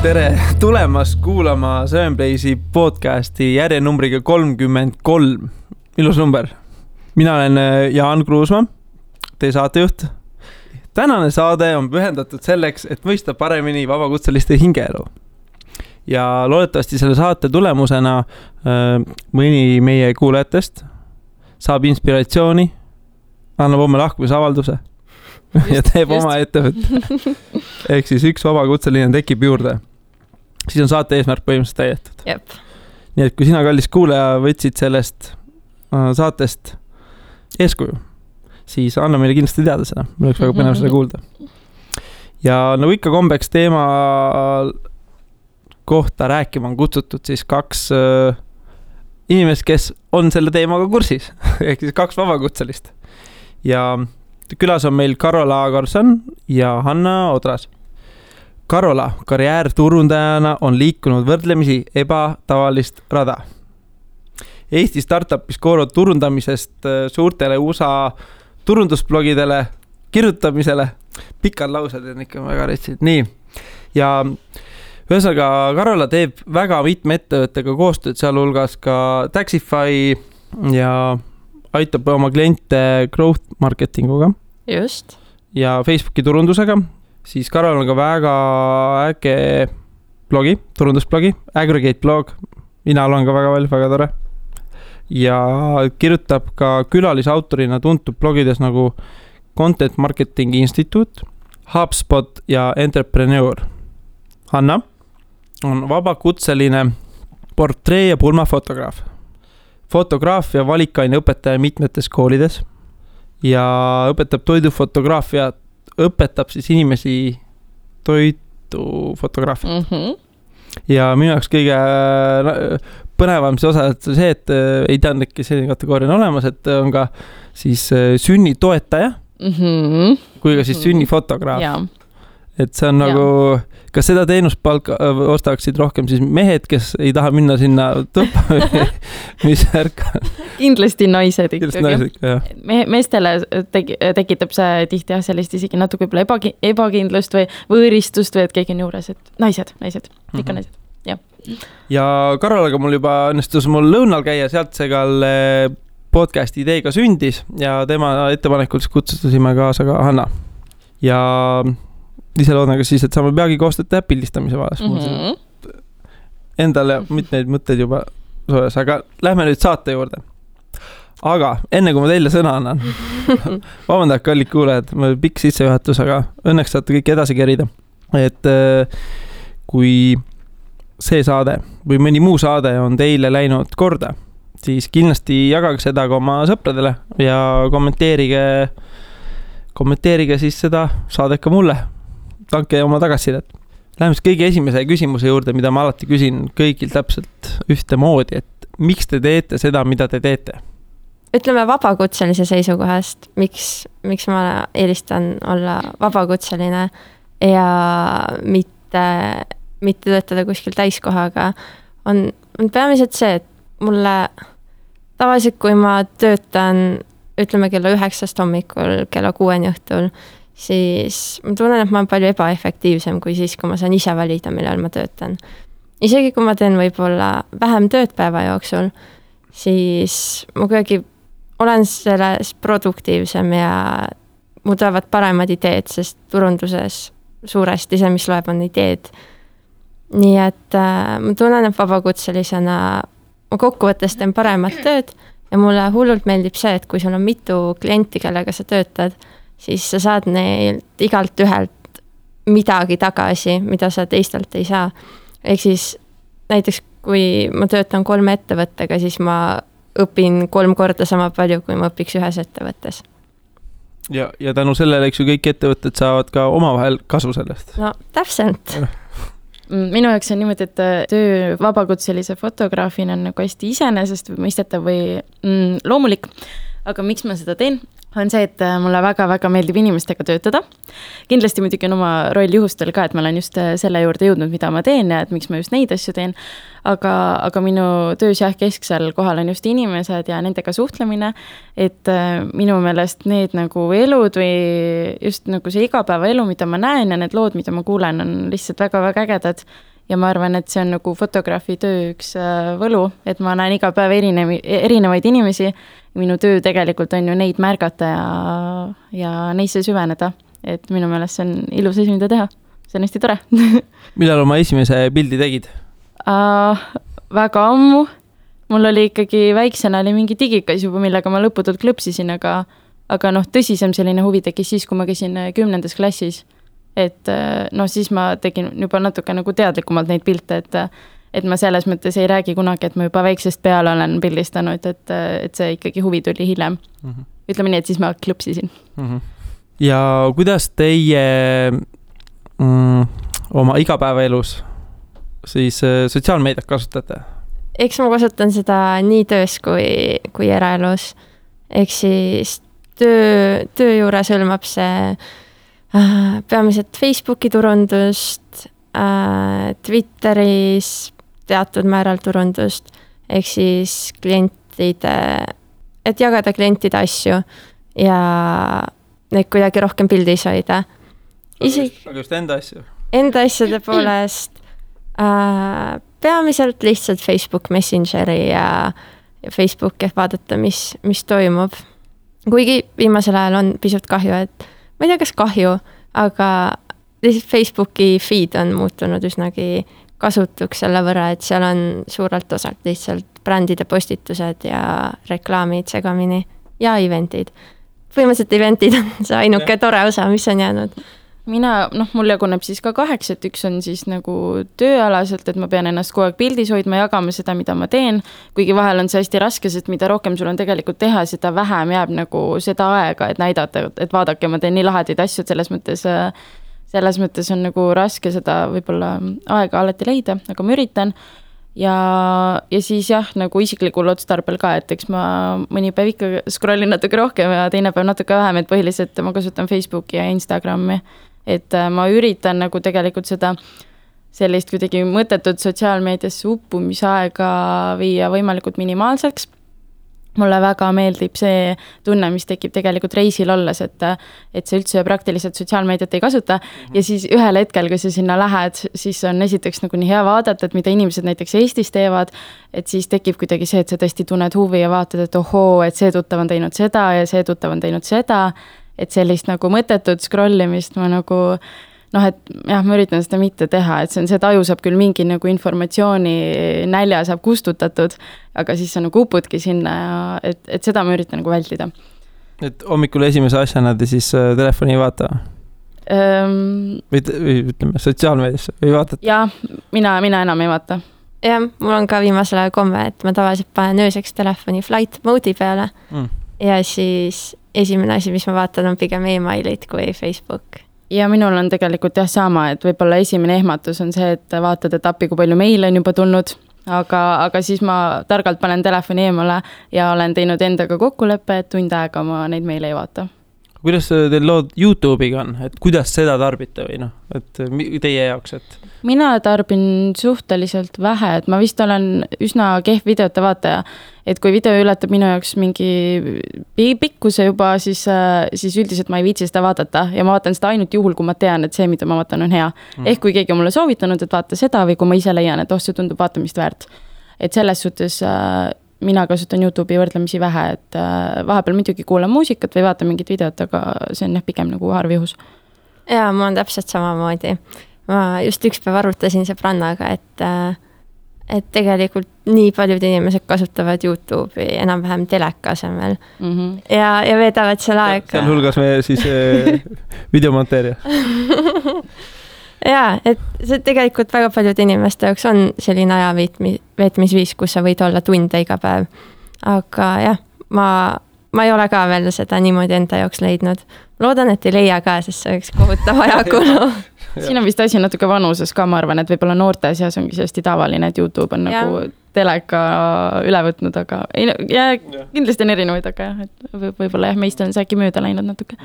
Tere tulemast kuulama Sevenplaysi podcasti järjenumbriga 33. Ilus number. Mina olen Jaan Kruusma, teie saatejuht. Tänane saade on pühendatud selleks, et mõista paremini vabakutseliste hingeelu. Ja loodetavasti selle saate tulemusena mõni meie kuulajatest saab inspiratsiooni, annab oma lahkumisavalduse ja teeb oma ettevõtte. Ehk siis üks vabakutseline tekib juurde. Siis on saate eesmärk põhimõtteliselt täidetud. Jep. Nii et kui sina, kallis kuulaja, võtsid sellest saatest eeskuju, siis anna meile kindlasti teada seda. Meil oleks väga põnev seda kuulda. Ja nagu ikka kombeks teema kohta rääkima on kutsutud siis kaks inimest, kes on selle teemaga kursis. Ehk siis kaks vabakutselist. Ja külas on meil Karola Karlsson ja Hanna Odras. Karola karjäärturundajana on liikunud võrdlemisi ebatavalist rada. Eesti startupis koorud turundamisest suurtele USA turundusblogidele, kirjutamisele. Pikad laused on ikka väga retsid. Nii. Ja ühesõnaga Karola teeb väga mitme ettevõttega koostööd, sealhulgas ka Taxify ja aitab oma kliente growth marketinguga. Just. Ja Facebooki turundusega. Siis Karol on ka väga äge blogi, turundusblogi, Aggregate blog. Mina olen ka väga palju, väga tore. Ja kirjutab ka külalisautorina tuntud blogides nagu Content Marketing Institute, HubSpot ja Entrepreneur. Hanna on vabakutseline portree- ja pulmafotograaf. Fotograafia valikaine õpetaja mitmetes koolides ja õpetab toidufotograafiat, õpetab siis inimesi toidufotograafiat. Ja minu jaoks kõige põnevam see osa, et see, et ei teadnudki selline kategooria on olemas, et on ka siis sünnitoetaja kui ka siis sünnifotograaf. Ja. Et see on nagu, kas seda teenuspalka ostaksid rohkem siis mehed, kes ei taha minna sinna tõppa mis ärka? Kindlasti naised ikkagi. Naised, meestele tekitab see tihti sellist isegi natuke ebakindlust või võõristust või et keegi on juures, et naised, ikka naised. Ja Karolaga mul juba õnnestus mul lõunal käia, sealt see ka podcasti ideega sündis ja tema ettepanekul kutsusime kaasa ka Hanna. Ja ise loodan ka siis, et saame peagi koostööd teha pildistamise vahes. Endale mitmeid mõtteid juba soojas, aga lähme nüüd saate juurde. Aga enne kui ma teile sõna annan, vabandage, kallid kuulajad, pikk sissejuhatus, aga õnneks saate kõik edasi kerida. Et kui see saade või mõni muu saade on teile läinud korda, siis kindlasti jagage seda ka oma sõpradele ja kommenteerige siis seda saadet ka mulle. Tanke oma tagasisidet. Läheme kõige esimese küsimuse juurde, mida ma alati küsin kõigil täpselt ühte moodi, et miks te teete seda, mida te teete? Ütleme vabakutselise seisukohast, miks ma eelistan olla vabakutseline ja mitte töötada kuskil täiskohaga, on peamiselt see, et mulle tavaliselt, kui ma töötan, ütleme kella 9 hommikul, kella 6 õhtul, siis ma tunnen, et ma olen palju ebaefektiivsem kui siis, kui ma saan ise valida, millal ma töötan. Isegi kui ma teen võib-olla vähem tööd päeva jooksul, siis ma kuidagi olen selles produktiivsem ja mu tulevad paremad ideed, sest turunduses suuresti see, mis loeb, on ideed. Nii et ma tunnen, et vabakutselisena ma kokkuvõttes teen paremat tööd ja mulle hullult meeldib see, et kui sul on mitu klienti, kellega sa töötad, siis sa saad neilt igalt ühelt midagi tagasi, mida sa teistelt ei saa. Ehk siis näiteks, kui ma töötan 3 ettevõttega, siis ma õpin 3 korda sama palju, kui ma õpiks ühes ettevõttes. Ja tänu sellele, eks ju, kõik ettevõtted saavad ka omavahel kasu sellest. No, täpselt. Minu jaoks on niimoodi, et töö vabakutselise fotograafina on nagu hästi iseenesest või mõistetav või loomulik. aga miks ma seda teen, on see, et mulle väga-väga meeldib inimestega töötada. Kindlasti muidugi on oma roll juhustel ka, et ma olen just selle juurde jõudnud, mida ma teen ja et miks ma just neid asju teen. Aga minu töös kesksel kohal on just inimesed ja nendega suhtlemine, et minu meelest need nagu elud või just nagu see igapäevaelu, mida ma näen ja need lood, mida ma kuulen, on lihtsalt väga-väga ägedad. Ja ma arvan, et see on nagu fotograafi töö üks võlu, et ma näen iga päev erinevaid inimesi. Minu töö tegelikult on ju neid märgata ja neisse süveneda. Et minu meelest see on ilus asi, mida teha. See on hästi tore. Millal oma esimese pildi tegid? Väga ammu. Mul oli ikkagi väiksena oli mingi digikas juba, millega ma lõputult klõpsisin, aga tõsisem selline huvi tekkis siis, kui ma käisin 10. klassis. Et siis ma tegin juba natuke nagu teadlikumalt neid pilte, et ma selles mõttes ei räägi kunagi, et ma juba väiksest peale olen pildistanud, et see ikkagi huvi tuli hiljem. Ütleme nii, et siis ma klõpsisin. Ja kuidas teie oma igapäevaelus siis sotsiaalmeediat kasutate? Eks ma kasutan seda nii töös kui eraelus. Eks siis töö juures hõlmab see peamiselt Facebooki turundust, Twitteris teatud määral turundust, ehk siis klientide, et jagada klientide asju ja neid kuidagi rohkem pildis hoida. Aga just enda asju? Enda asjade poolest peamiselt lihtsalt Facebook Messengeri ja Facebooki, et vaadata, mis toimub. Kuigi viimasel ajal on pisut kahju, et ma ei tea, kas kahju, aga Facebooki feed on muutunud üsnagi kasutuks selle võrra, et seal on suurelt osalt lihtsalt brändide postitused ja reklaamid segamini ja eventid. Põhimõtteliselt eventid on see ainuke tore osa, mis on jäänud. Mul jaguneb siis ka 8, et üks on siis nagu tööalaselt, et ma pean ennast kogu aeg pildis hoidma, jagama seda, mida ma teen, kuigi vahel on see hästi raske, sest mida rohkem sul on tegelikult teha, seda vähem jääb nagu seda aega, et näidata, et vaadake, ma teen nii lahedaid asju, selles mõttes on nagu raske seda võib-olla aega alati leida, aga ma üritan. Ja siis nagu isiklikul otstarbel ka, et eks ma mõni päev ikka scrollin natuke rohkem ja teine päev natuke vähem, et põhiliselt ma kasutan Facebooki ja Instagrami. Et ma üritan nagu tegelikult seda sellist kuidagi mõttetut sotsiaalmeediasse uppumisaega viia võimalikult minimaalseks. Mulle väga meeldib see tunne, mis tekib tegelikult reisil olles, et see üldse praktiliselt sotsiaalmeediat ei kasuta ja siis ühel hetkel, kui sa sinna lähed, siis on esiteks nagu nii hea vaadata, et mida inimesed näiteks Eestis teevad, et siis tekib kuidagi see, et sa tõesti tunned huvi ja vaatad, et ohoo, et see tuttav on teinud seda ja see tuttav on teinud seda, et sellist nagu mõttetut scrollimist ma nagu et jah, ma üritan seda mitte teha, et see taju saab küll mingi nagu informatsiooni nälja saab kustutatud, aga siis sa nagu upudki sinna ja et seda ma üritan nagu vältida. Et hommikul esimese asjana te siis telefoni ei vaata? Või ütleme sotsiaalmeediasse või vaatate? Jah, mina enam ei vaata. Jah, mul on ka viimasel ajal komme, et ma tavaliselt panen ööseks telefoni flight mode'i peale ja siis esimene asi, mis ma vaatan, on pigem emailid kui Facebook. Ja minul on tegelikult sama, et võib-olla esimene ehmatus on see, et vaatad, et appi, kui palju meile on juba tulnud, aga siis ma targalt panen telefoni eemale ja olen teinud endaga kokkuleppe, et tund aega ma neid meile ei vaata. Kuidas teil lood YouTube'iga on? Et kuidas seda tarbite või et teie jaoks? Et... Mina tarbin suhteliselt vähe, et ma vist olen üsna kehv videote vaataja, et kui video ületab minu jaoks mingi pikkuse juba, siis üldiselt ma ei viitsi seda vaadata ja ma vaatan seda ainult juhul, kui ma tean, et see, mida ma vaatan, on hea. Ehk kui keegi on mulle soovitanud, et vaata seda või kui ma ise leian, et see tundub vaatamist väärt. Et selles suhtes mina kasutan YouTube'i võrdlemisi vähe, et vahepeal muidugi kuulan muusikat või vaatan mingit videot, aga see on pigem nagu harv juhus. Jaa, mul on täpselt samamoodi. Ma just üks päev arutasin sõbrannaga, et tegelikult nii paljud inimesed kasutavad YouTube'i enam-vähem teleka asemel ja veedavad seal aega. Seal hulgas me siis videomonteerija. Jaa, et see tegelikult väga paljud inimeste jaoks on selline aja veetmisviis, kus sa võid olla tunde iga päev. Aga jah, ma ei ole ka veel seda niimoodi enda jaoks leidnud. Loodan, et ei leia ka, sest see oleks kohutav ajakulu. Siin on vist asi natuke vanuses ka, ma arvan, et võib-olla noorte seas ongi hästi tavaline, et YouTube on nagu teleka üle võtnud, aga ei, ja kindlasti on erinevaid, aga jah, et võib-olla jah, meist on see äkki mööda läinud natuke.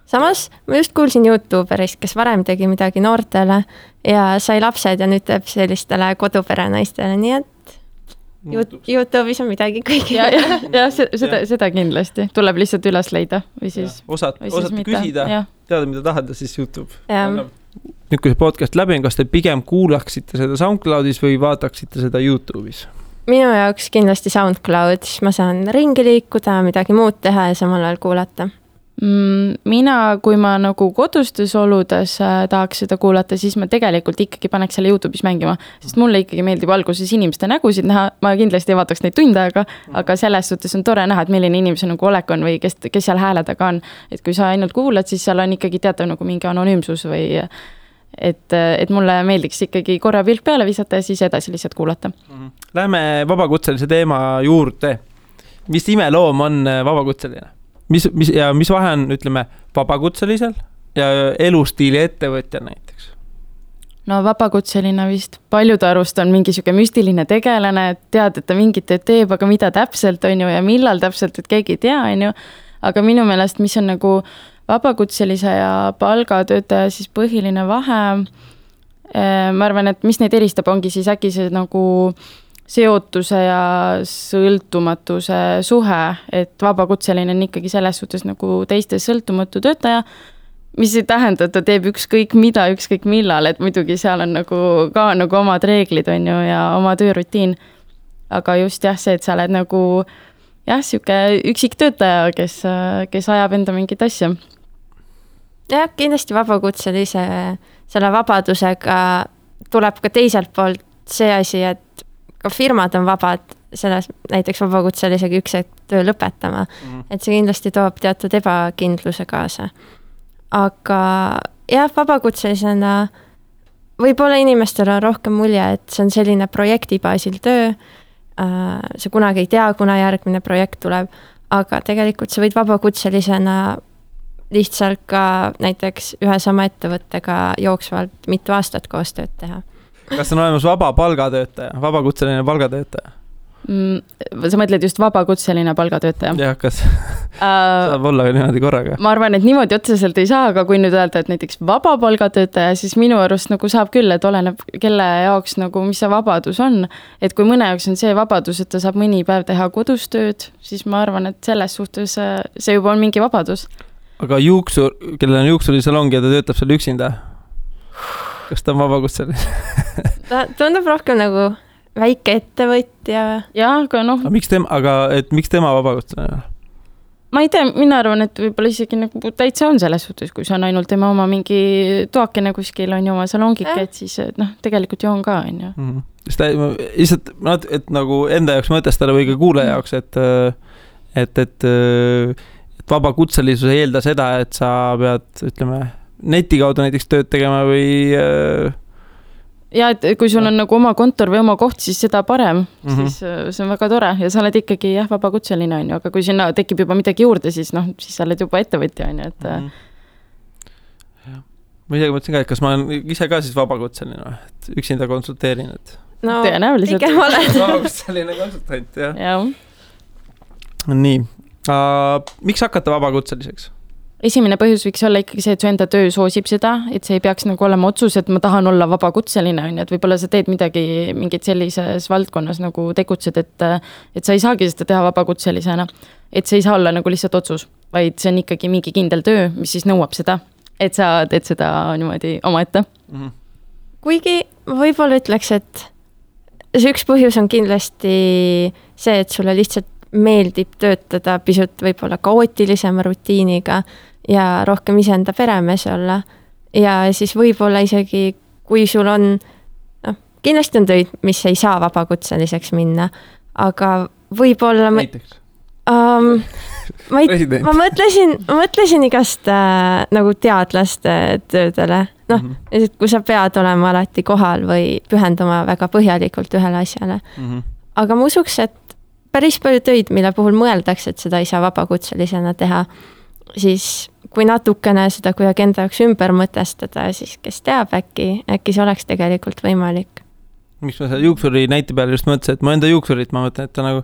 Samas ma just kuulsin YouTuberist, kes varem tegi midagi noortele ja sai lapsed ja nüüd teeb sellistele kodupere naistele, nii et YouTube'is on midagi kõigi. Ja seda kindlasti. Tuleb lihtsalt üles leida või siis... Osata küsida, teada, mida tahad ja siis YouTube. Nüüd, kui see podcast läbi on, kas te pigem kuulaksite seda SoundCloudis või vaataksite seda YouTube'is? Minu jaoks kindlasti SoundCloud, siis ma saan ringi liikuda, midagi muud teha ja samal ajal kuulata. Mina, kui ma nagu kodustes oludes tahaks seda kuulata, siis ma tegelikult ikkagi paneks selle YouTube'is mängima, sest mulle ikkagi meeldib alguses inimeste nägusid näha, ma kindlasti ei vaataks neid tunde aga selles suhtes on tore näha, et milline inimese nagu olek on või kes seal hääle taga on. Et kui sa ainult kuulad, siis seal on ikkagi teatav nagu mingi anonüümsus või et mulle meeldiks ikkagi korra pilk peale visata ja siis edasi lihtsalt kuulata. Läheme vabakutselise teema juurde. Mis imeloom on vabakutseline? Mis vahe on, ütleme, vabakutselisel ja elustiili ettevõtja näiteks? No vabakutseline vist paljude arust on mingi siuke müstiline tegelane, et tead, et ta mingit teeb, aga mida täpselt on ju ja millal täpselt, et keegi ei tea, on ju. Aga minu meelest, mis on nagu vabakutselise ja palgatöötaja siis põhiline vahe, ma arvan, et mis neid eristab, ongi siis äkki see nagu seotuse ja sõltumatuse suhe, et vabakutseline on ikkagi selles suhtes nagu teiste sõltumatu töötaja, mis ei tähenda, et ta teeb ükskõik mida, ükskõik millal, et muidugi seal on nagu ka nagu omad reeglid on ju ja oma töörutiin. Aga just jah, see, et sa oled nagu jah, siuke üksik töötaja, kes ajab enda mingit asja. Jah, kindlasti vabakutselise selle vabadusega tuleb ka teiselt poolt see asi, et ka firmad on vabad selles näiteks vabakutselisega üks töö lõpetama. Et see kindlasti toob teatud ebakindluse kaasa. Aga jah, vabakutselisena võib-olla inimestel on rohkem mulje, et see on selline projektibaasil töö. See kunagi ei tea, kuna järgmine projekt tuleb, aga tegelikult sa võid vabakutselisena lihtsalt ka näiteks ühe sama ettevõttega jooksvalt mitu aastat koostööd teha. Kas on olemas vabapalgatöötaja, vabakutseline palgatöötaja? Sa mõtled just vabakutseline palgatöötaja? Jah, kas saab olla niimoodi korraga? Ma arvan, et niimoodi otseselt ei saa, aga kui nüüd öelda, et näiteks vabapalgatöötaja, siis minu arust nagu saab küll, et oleneb kelle jaoks nagu, mis see vabadus on. Et kui mõne jaoks on see vabadus, et ta saab mõni päev teha kodustööd, siis ma arvan, et selles suhtes see juba on mingi vabadus. Aga kellel on juuksurisalong ja ta töötab seal üksinda? Kas ta on vabakutseline? Ta tundub rohkem nagu väike ettevõtja. Jaa, aga noh. Miks tema vabakutseline? Ma ei tea, mina arvan, et võib-olla isegi nagu täitsa on selles suhtes, kui see on ainult tema oma mingi toakene kuskil on ju oma salongike, et siis tegelikult ju on ka, on ju. Lihtsalt, et nagu enda jaoks mõtestada või ka kuule jaoks, et vabakutselisus ei eelda seda, et sa pead, ütleme, neti kaudu näiteks tööd tegema või... Ja, et kui sul on nagu oma kontor või oma koht, siis seda parem, siis see on väga tore ja sa oled ikkagi vabakutseline, on ju, aga kui sinna tekib juba midagi juurde, siis sa oled juba ettevõtja, on ju, et... Ma isegi mõtlesin ka, et kas ma olen ise ka siis vabakutseline, et üksinda konsulteerin, et... No, tõenäoliselt. Pigem oled. Vabakutseline konsultant, jah. Jah. Nii. Miks hakata vabakutseliseks? Esimene põhjus võiks olla ikkagi see, et su enda töö soosib seda, et see ei peaks nagu olema otsus, et ma tahan olla vabakutseline, on ju, et võib-olla sa teed mingit sellises valdkonnas nagu tegutsed, et sa ei saagi seda teha vabakutselisena. Et see ei saa olla nagu lihtsalt otsus, vaid see on ikkagi mingi kindel töö, mis siis nõuab seda, et sa teed seda niimoodi oma ette. Kuigi ma võib-olla ütleks, et see üks põhjus on kindlasti see, et sulle lihtsalt meeldib töötada pisut võib-olla kaootilisema rutiiniga ja rohkem iseenda peremees olla. Ja siis võib-olla isegi, kui sul on, kindlasti on töid, mis ei saa vabakutseliseks minna, aga võib-olla... Näiteks? Ma mõtlesin igast nagu teadlaste töödele. Kui sa pead olema alati kohal või pühenduma väga põhjalikult ühele asjale. Aga ma usuks, et päris palju töid, mille puhul mõeldakse, et seda ei saa vabakutselisena teha, siis kui natukene seda kuidagi enda jaoks ümber mõtestada, siis kes teab, äkki see oleks tegelikult võimalik. miks ma selle juuksuri näite peale just mõtlesin, et ma enda juuksurit, ma mõtlen, et ta nagu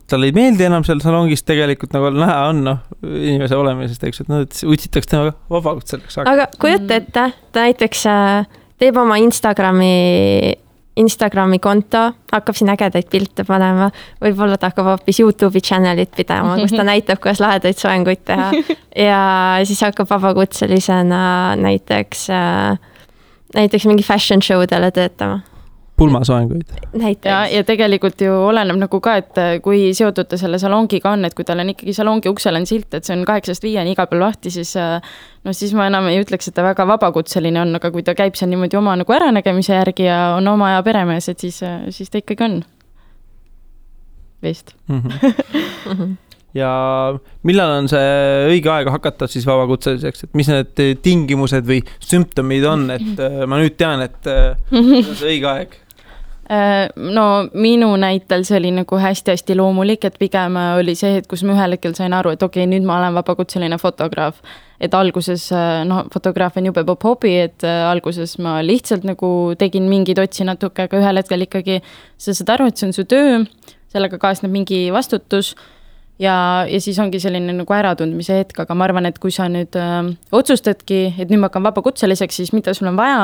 talle ei meeldi enam seal salongis tegelikult nagu näha on, inimese olemisest, eks, et utsitakse temaga vabakutseliseks. Aga kujuta ette, ta näiteks teeb oma Instagrami konto, hakkab siin ägedaid pilte panema, võib-olla ta hakkab hoopis YouTube'i channelit pidama, kus ta näitab, kuidas lahedaid soenguid teha ja siis hakkab vabakutselisena näiteks mingi fashion showdele töötama. Pulmasoenguid. Ja tegelikult ju oleneb nagu ka, et kui seotud ta selle salongiga on, et kui tal on ikkagi salongi uksel on silt, et see on 8-5 iga peal lahti, siis siis ma enam ei ütleks, et ta väga vabakutseline on, aga kui ta käib seal niimoodi oma nagu äranägemise järgi ja on oma ja peremees, et siis ta ikkagi on. Vist. Ja millal on see õige aeg hakata siis vabakutseliseks, et mis need tingimused või sümptomid on, et ma nüüd tean, et see õige aeg? No minu näitel see oli nagu hästi-hästi loomulik, et pigem oli see, et kus ma ühel hetkel sain aru, et okei, nüüd ma olen vabakutseline fotograaf. Et alguses, fotograaf on jube popp hobi, et alguses ma lihtsalt nagu tegin mingid otsi natuke, aga ühel hetkel ikkagi sa saad aru, et see on su töö, sellega kaasneb mingi vastutus ja siis ongi selline nagu äratundmise hetk, aga ma arvan, et kui sa nüüd otsustadki, et nüüd ma hakkan vabakutseliseks, siis mida sul on vaja,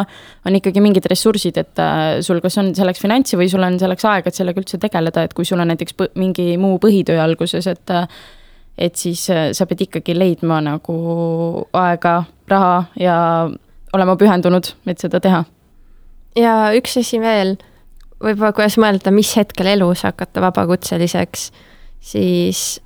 on ikkagi mingid ressursid, et sul kas on selleks finantsi või sul on selleks aega, et sellega üldse tegeleda, et kui sul on näiteks mingi muu põhitöö alguses, et siis sa pead ikkagi leidma nagu aega, raha ja olema pühendunud, et seda teha. Ja üks asi veel, võib-olla kuidas mõelda, mis hetkel elus hakata vabakutseliseks, siis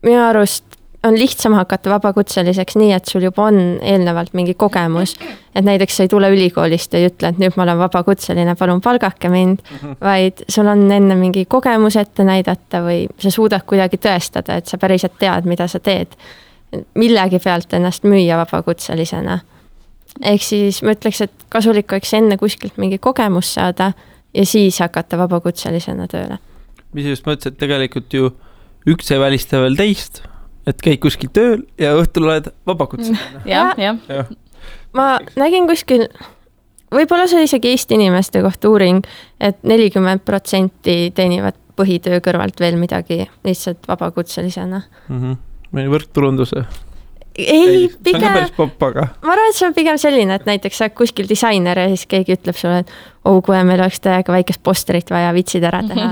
minu arust on lihtsam hakata vabakutseliseks nii, et sul juba on eelnevalt mingi kogemus, et näiteks sa ei tule ülikoolist ja ei ütle, et nüüd ma olen vabakutseline, palun palgake mind, vaid sul on enne mingi kogemus ette näidata või sa suudad kuidagi tõestada, et sa päriselt tead, mida sa teed. Millegi pealt ennast müüa vabakutselisena. Ehk siis ma ütleks, et kasulik oleks enne kuskilt mingi kogemus saada ja siis hakata vabakutselisena tööle. Mis just mõtlesin, et tegelikult ju üks ei välista veel teist, et käid kuskil tööl ja õhtul oled vabakutseline. Ja. Ma nägin kuskil, võib-olla see isegi Eesti inimeste kohta uuring, et 40% teenivad põhitöö kõrvalt veel midagi lihtsalt vabakutselisena. Meil võrktulunduse. Ei, pigem, see on päris popp, aga ma arvan, et see on pigem selline, et näiteks sa kuskil disainer ja siis keegi ütleb sulle, et kui meil oleks täiega väikest posterit vaja vitsid ära teha.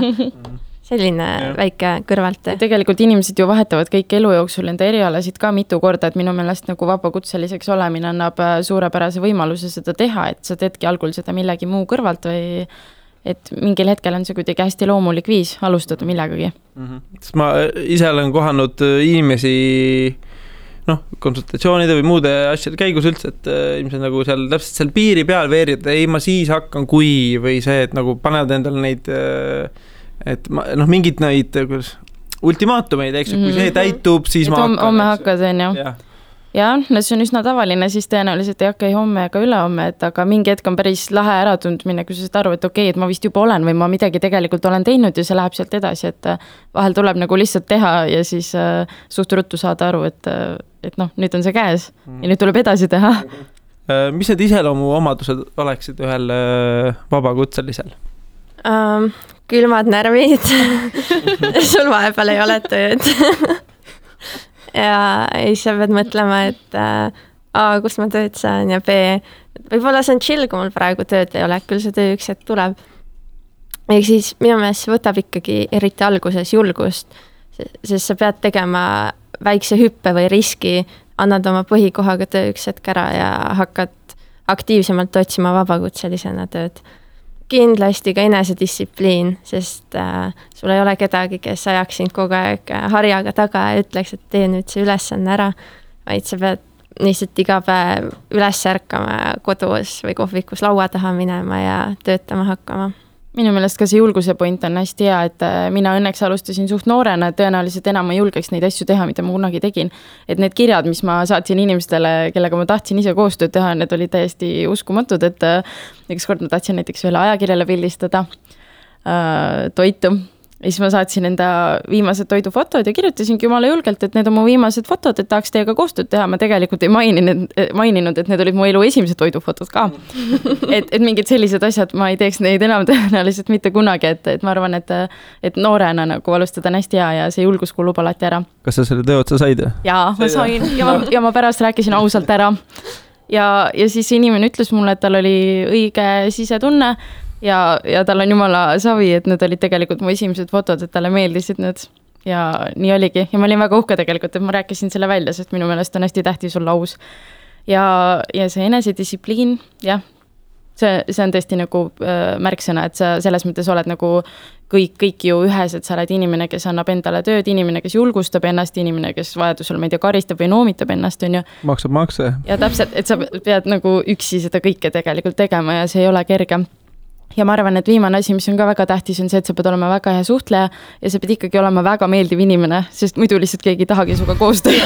Selline väike kõrvalt. Tegelikult inimesed ju vahetavad kõik elu jooksul enda erialasid ka mitu korda, et minu meelest nagu vabakutseliseks olemine annab suurepärase võimaluse seda teha, et sa teedki algul seda millegi muu kõrvalt või et mingil hetkel on see kuidagi hästi loomulik viis alustada millegagi. Sest ma ise olen kohanud inimesi konsultatsioonide või muude asjade käigus üldse, et ilmselt nagu seal täpselt seal piiri peal veerida, ei ma siis hakkan kui või see, et nagu panevad endale neid et mingid neid ultimaatumeid, eks, kui see täitub, siis ma hakkan. Homme hakkad, on ju. Ja, see on üsna tavaline, siis tõenäoliselt ei hakka homme ega ülehomme, et aga mingi hetk on päris lahe äratundmine, kui sa saad aru, et okei, et ma vist juba olen või ma midagi tegelikult olen teinud ja see läheb sealt edasi, et vahel tuleb nagu lihtsalt teha ja siis suht ruttu saada aru, et nüüd on see käes ja nüüd tuleb edasi teha. Mis need iseloomu omadused oleksid ühel vabakutselisel? Külmad närvid. Sul vahepeal ei ole tööd. Ja siis sa pead mõtlema, et A, kus ma tööd saan ja B, võib-olla see on chill, kui mul praegu tööd ei ole, küll see töö üks hetk tuleb. Ehk siis minu meelest võtab ikkagi eriti alguses julgust, sest sa pead tegema väikse hüppe või riski, annad oma põhikohaga töö üks hetk ära ja hakkad aktiivsemalt otsima vabakutselisena tööd. Kindlasti ka enesedistsipliin, sest sul ei ole kedagi, kes ajaks sind kogu aeg harjaga taga ja ütleks, et tee nüüd see ülesanne ära, vaid sa pead lihtsalt iga päev üles ärkama kodus või kohvikus laua taha minema ja töötama hakkama. Minu meelest ka see julguse point on hästi hea, et mina õnneks alustasin suht noorena, et tõenäoliselt enam ma julgeks neid asju teha, mida ma kunagi tegin. Et need kirjad, mis ma saatsin inimestele, kellega ma tahtsin ise koostööd teha, need olid täiesti uskumatud, et üks kord ma tahtsin näiteks ühele ajakirjale pildistada toitu Ja siis ma saatsin enda viimased toidufotod ja kirjutasingi jumala julgelt, et need on mu viimased fotod, et tahaks teiega koostööd teha. Ma tegelikult ei maininud, et need olid mu elu esimesed toidufotod ka. et mingid sellised asjad, ma ei teeks neid enam tõenäoliselt mitte kunagi, et ma arvan, et noorena nagu alustada on hästi hea ja see julgus kulub alati ära. Kas sa selle töö otsa said? Jaa, ma sain ja ma pärast rääkisin ausalt ära. Ja siis inimene ütles mulle, et tal oli õige sisetunne ja tal on jumala savi, et need olid tegelikult mu esimesed fotod, et talle meeldisid need ja nii oligi. Ja ma olin väga uhke tegelikult, et ma rääkisin selle välja, sest minu meelest on hästi tähtis olla aus. Ja see enesedistsipliin, jah, see on tõesti nagu märksõna, et sa selles mõttes oled nagu kõik ju ühes, et sa oled inimene, kes annab endale tööd, inimene, kes julgustab ennast, inimene, kes vajadusel, ma ei tea, karistab või noomitab ennast, on ju. Maksab makse. Ja täpselt, et sa pead nagu üksi seda kõike tegelikult tegema ja see ei ole kerge. Ja ma arvan, et viimane asi, mis on ka väga tähtis, on see, et sa pead olema väga hea suhtleja ja sa pead ikkagi olema väga meeldiv inimene, sest muidu lihtsalt keegi ei tahagi suga koostööd.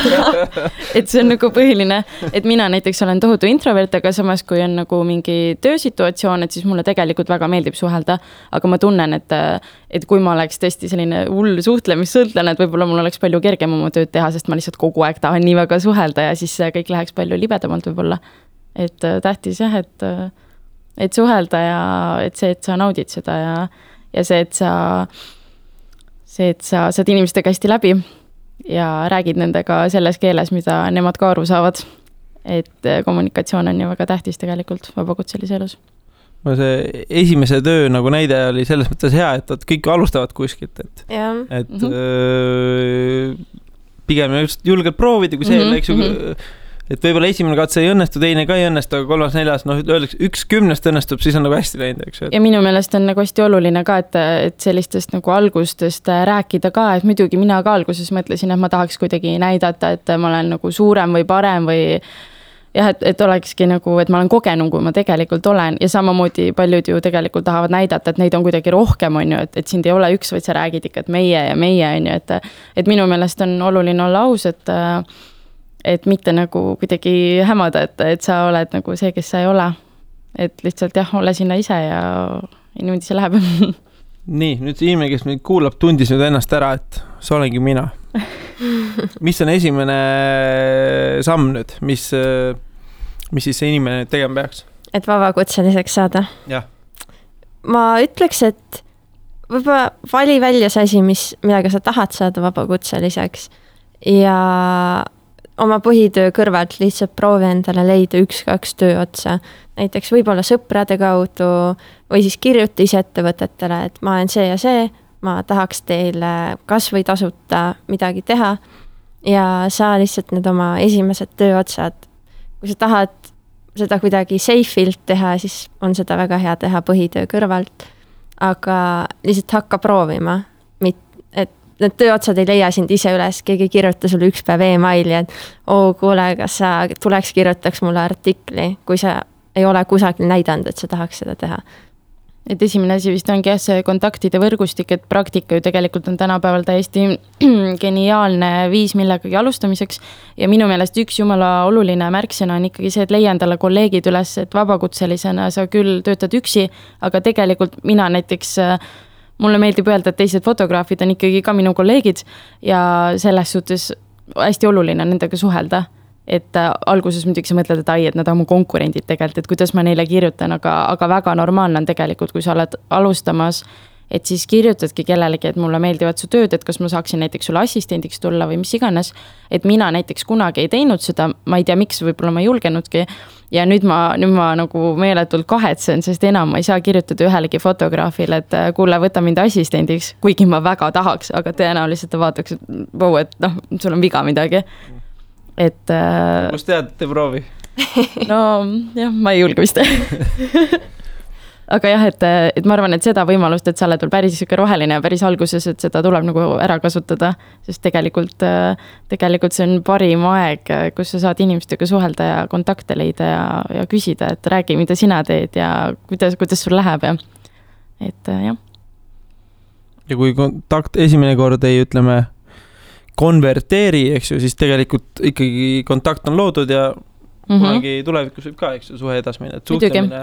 Et see on nagu põhiline, et mina näiteks olen tohutu introvert, aga samas kui on nagu mingi töösituatsioon, et siis mulle tegelikult väga meeldib suhelda, aga ma tunnen, et kui ma oleks tõesti selline hull suhtlemissõltlane, et võib-olla mul oleks palju kergem oma tööd teha, sest ma lihtsalt kogu aeg tahan nii väga suhelda ja siis kõik läheks palju libedamalt võib-olla. Et tähtis jah, et suhelda ja et see, et sa naudid seda ja see, et sa saad inimestega hästi läbi ja räägid nendega selles keeles, mida nemad ka aru saavad. Et kommunikatsioon on ju väga tähtis tegelikult vabakutselise elus. See esimese töö nagu näide oli selles mõttes hea, et kõik alustavad kuskilt, et pigem just julgelt proovida, kui see eks ju, et võib-olla esimene katse ei õnnestu, teine ka ei õnnestu, aga 3., 4., öeldakse 1/10 õnnestub, siis on nagu hästi läinud, eks ju. Ja minu meelest on nagu hästi oluline ka, et sellistest nagu algustest rääkida ka, et muidugi mina ka alguses mõtlesin, et ma tahaks kuidagi näidata, et ma olen nagu suurem või parem või jah, et olekski nagu, et ma olen kogenum, kui ma tegelikult olen ja samamoodi paljud ju tegelikult tahavad näidata, et neid on kuidagi rohkem, on ju, et sind ei ole üks, vaid sa räägid ikka, et meie ja meie, on ju, et minu meelest on oluline olla aus, et mitte nagu kuidagi hämada, et sa oled nagu see, kes sa ei ole. Et lihtsalt jah, ole sinna ise ja niimoodi see läheb. Nii, nüüd see inimene, kes meid kuulab, tundis nüüd ennast ära, et see olengi mina. Mis on esimene samm nüüd, mis siis see inimene tegema peaks? Et vabakutseliseks saada? Jah. Ma ütleks, et võib-olla vali välja see asi, millega sa tahad saada vabakutseliseks ja oma põhitöö kõrvalt lihtsalt proovi endale leida 1-2 töö otsa. Näiteks võib-olla sõprade kaudu või siis kirjuta ise ettevõtetele, et ma olen see ja see, ma tahaks teile kas või tasuta midagi teha ja saa lihtsalt need oma esimesed töö otsad. Kui sa tahad seda kuidagi safe'ilt teha, siis on seda väga hea teha põhitöö kõrvalt, aga lihtsalt hakka proovima, need tööotsad ei leia sind ise üles, keegi kirjuta sulle üks päev e-maili, et kuule, kas sa tuleks kirjutaks mulle artikli, kui sa ei ole kusagil näidanud, et sa tahaks seda teha. Et esimene asi vist ongi see kontaktide võrgustik, et praktika ju tegelikult on tänapäeval täiesti geniaalne viis millegagi alustamiseks ja minu meelest üks jumala oluline märksõna on ikkagi see, et leia endale kolleegid üles, et vabakutselisena sa küll töötad üksi, aga tegelikult mina näiteks mulle meeldib öelda, et teised fotograafid on ikkagi ka minu kolleegid ja selles suhtes hästi oluline nendega suhelda. Et alguses muidugi sa mõtled, et nad on mu konkurendid tegelikult, et kuidas ma neile kirjutan, aga väga normaalne on tegelikult, kui sa oled alustamas, et siis kirjutadki kellelegi, et mulle meeldivad su tööd, et kas ma saaksin näiteks sulle assistendiks tulla või mis iganes. Et mina näiteks kunagi ei teinud seda, ma ei tea miks, võib-olla ma ei julgenudki ja nüüd ma nagu meeletult kahetsen, sest enam ma ei saa kirjutada ühelegi fotograafile, et kuule, võta mind assistendiks, kuigi ma väga tahaks, aga tõenäoliselt ta vaataks, et sul on viga midagi. Et kust tead, te proovi? No jah, ma ei julge vist. Aga jah, et ma arvan, et seda võimalust, et sa oled veel päris roheline ja päris alguses, et seda tuleb nagu ära kasutada, sest tegelikult see on parim aeg, kus sa saad inimestega suhelda ja kontakte leida ja küsida, et räägi, mida sina teed ja kuidas sul läheb ja et jah. Ja kui kontakt esimene kord ei konverteeri, eks ju, siis tegelikult ikkagi kontakt on loodud ja kunagi tulevikus võib ka, eks ju, suhe edas minna, et suhtlemine.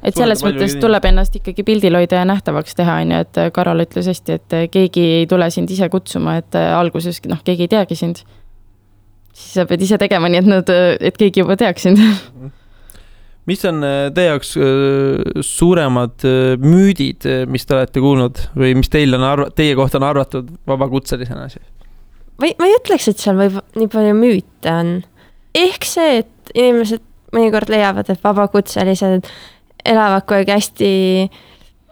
Et selles mõttes tuleb ennast ikkagi pildil hoida ja nähtavaks teha, et Karol ütles hästi, et keegi ei tule sind ise kutsuma, et alguses keegi ei teagi sind. Siis sa pead ise tegema nii, et keegi juba teaks sind. Mis on teie jaoks suuremad müüdid, mis te olete kuulnud või mis teie kohta on arvatud vabakutselisena? Ma ei ütleks, et seal võib nii palju müüte on. Ehk see, et inimesed mõnikord leiavad, et vabakutselised elavad kogu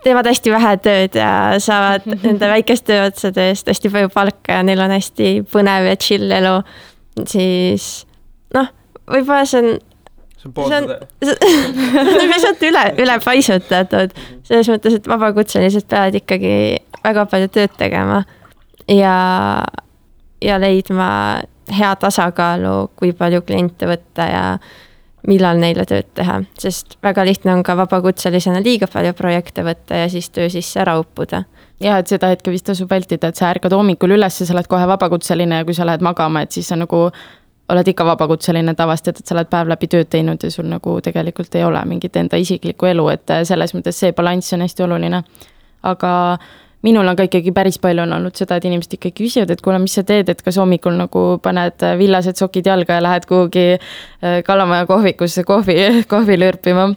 teevad hästi vähe tööd ja saavad nende väikest tööotsade eest hästi palju palka ja neil on hästi põnev ja chill elu. Siis võib-olla see on lihtsalt üle paisutatud. Selles mõttes, et vabakutselised peavad ikkagi väga palju tööd tegema ja leidma hea tasakaalu, kui palju kliente võtta ja millal neile tööd teha. Sest väga lihtne on ka vabakutselisena liiga palju projekte võtta ja siis töö sisse ära uppuda. Ja, et seda hetke vist tasub vältida, et sa ärkad hommikul üles ja sa oled kohe vabakutseline ja kui sa lähed magama, et siis sa oled ikka vabakutseline tavast, et sa oled päev läbi tööd teinud ja sul tegelikult ei ole mingit enda isiklikku elu, et selles mõttes see balanss on hästi oluline. Aga minul on ka ikkagi päris palju on olnud seda, et inimesed ikkagi küsivad, et kuule, mis sa teed, et kas hommikul paned villased sokid jalga ja lähed kuhugi Kalamaja kohvikusse kohvi lörpima.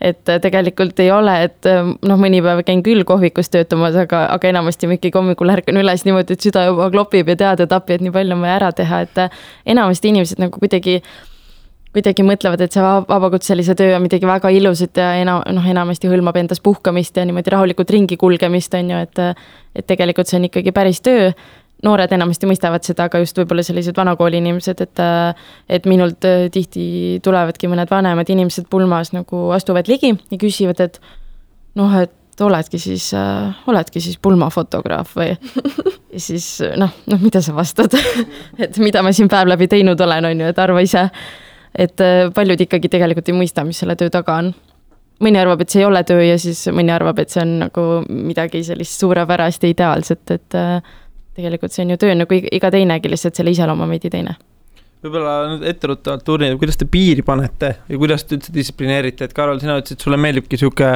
Et tegelikult ei ole, et mõni päev käin küll kohvikus töötamas, aga enamasti ikkagi hommikul ärkan üles niimoodi, et süda juba klopib ja teada tapi, et nii palju on vaja ära teha, et enamasti inimesed kuidagi mõtlevad, et see vabakutselise töö on midagi väga ilusat ja enamasti hõlmab endas puhkamist ja niimoodi rahulikult ringi kulgemist on ju, et tegelikult see on ikkagi päris töö. Noored enamasti mõistavad seda, aga just võib-olla sellised vanakooli inimesed, et minult tihti tulevadki mõned vanemad inimesed pulmas astuvad ligi ja küsivad, et et oledki siis pulmafotograaf või ja siis mida sa vastad, et mida ma siin päev läbi teinud olen, on ju, et arva ise, et paljud ikkagi tegelikult ei mõista, mis selle töö taga on. Mõni arvab, et see ei ole töö ja siis mõni arvab, et see on midagi sellist suurepärast ja ideaalset, et tegelikult see on ju töö iga teinegi, lihtsalt selle iseloom on veidi teine. Võib-olla nüüd etteruttavalt tuurnid, kuidas te piiri panete ja kuidas te üldse distsiplineerite, et Karol, sina ütlesid, et sulle meeldibki siuke,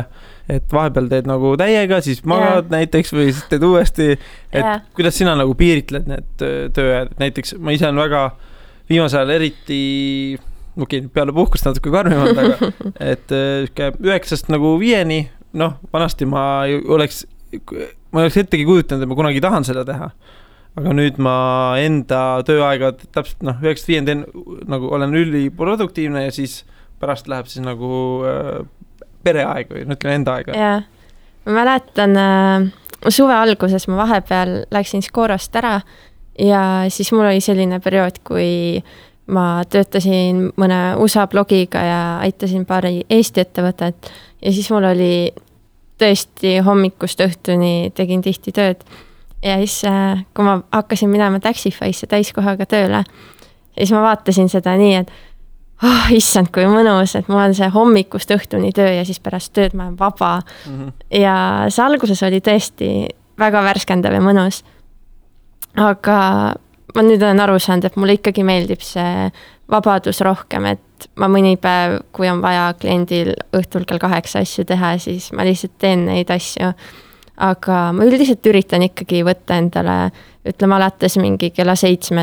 et vahepeal teed täiega, siis magad näiteks või siis teed uuesti, et kuidas sina piiritled need tööajad, näiteks ma ise on väga viimasel eriti peale puhkust natuke karmimad, aga et 9-st 5-ni, vanasti ma oleks ettegi kujutanud, et ma kunagi tahan seda teha. Aga nüüd ma enda tööaega täpselt 9-5 teen, olen üliproduktiivne ja siis pärast läheb siis pereaeg või ütleme enda aega. Ja, ma mäletan suve alguses ma vahepeal läksin Skorost ära ja siis mul oli selline periood, kui ma töötasin mõne USA blogiga ja aitasin paari Eesti ettevõtet ja siis mul oli tõesti hommikust õhtuni tegin tihti tööd ja siis, kui ma hakkasin minema Taxify'sse täiskohaga tööle, siis ma vaatasin seda nii, et issand, kui mõnus, et mul on see hommikust õhtuni töö ja siis pärast tööd ma olen vaba. Ja see alguses oli tõesti väga värskendav ja mõnus. Aga ma nüüd olen aru saanud, et mulle ikkagi meeldib see vabadus rohkem, et ma mõni päev, kui on vaja kliendil õhtul kell 8 asju teha, siis ma lihtsalt teen neid asju. Aga ma üldiselt üritan ikkagi võtta endale, ütleme alates mingi kella 7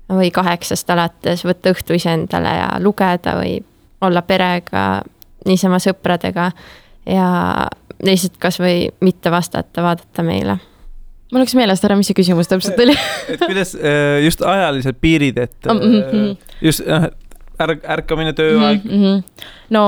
või 8 alates, võtta õhtu ise endale ja lugeda või olla perega, niisama sõpradega ja lihtsalt kas või mitte vastata, vaadata meile. Mul oleks meelest ära, mis see küsimus täpselt oli. Et kuidas just ajalised piirid, et just ärkamine tööaeg? No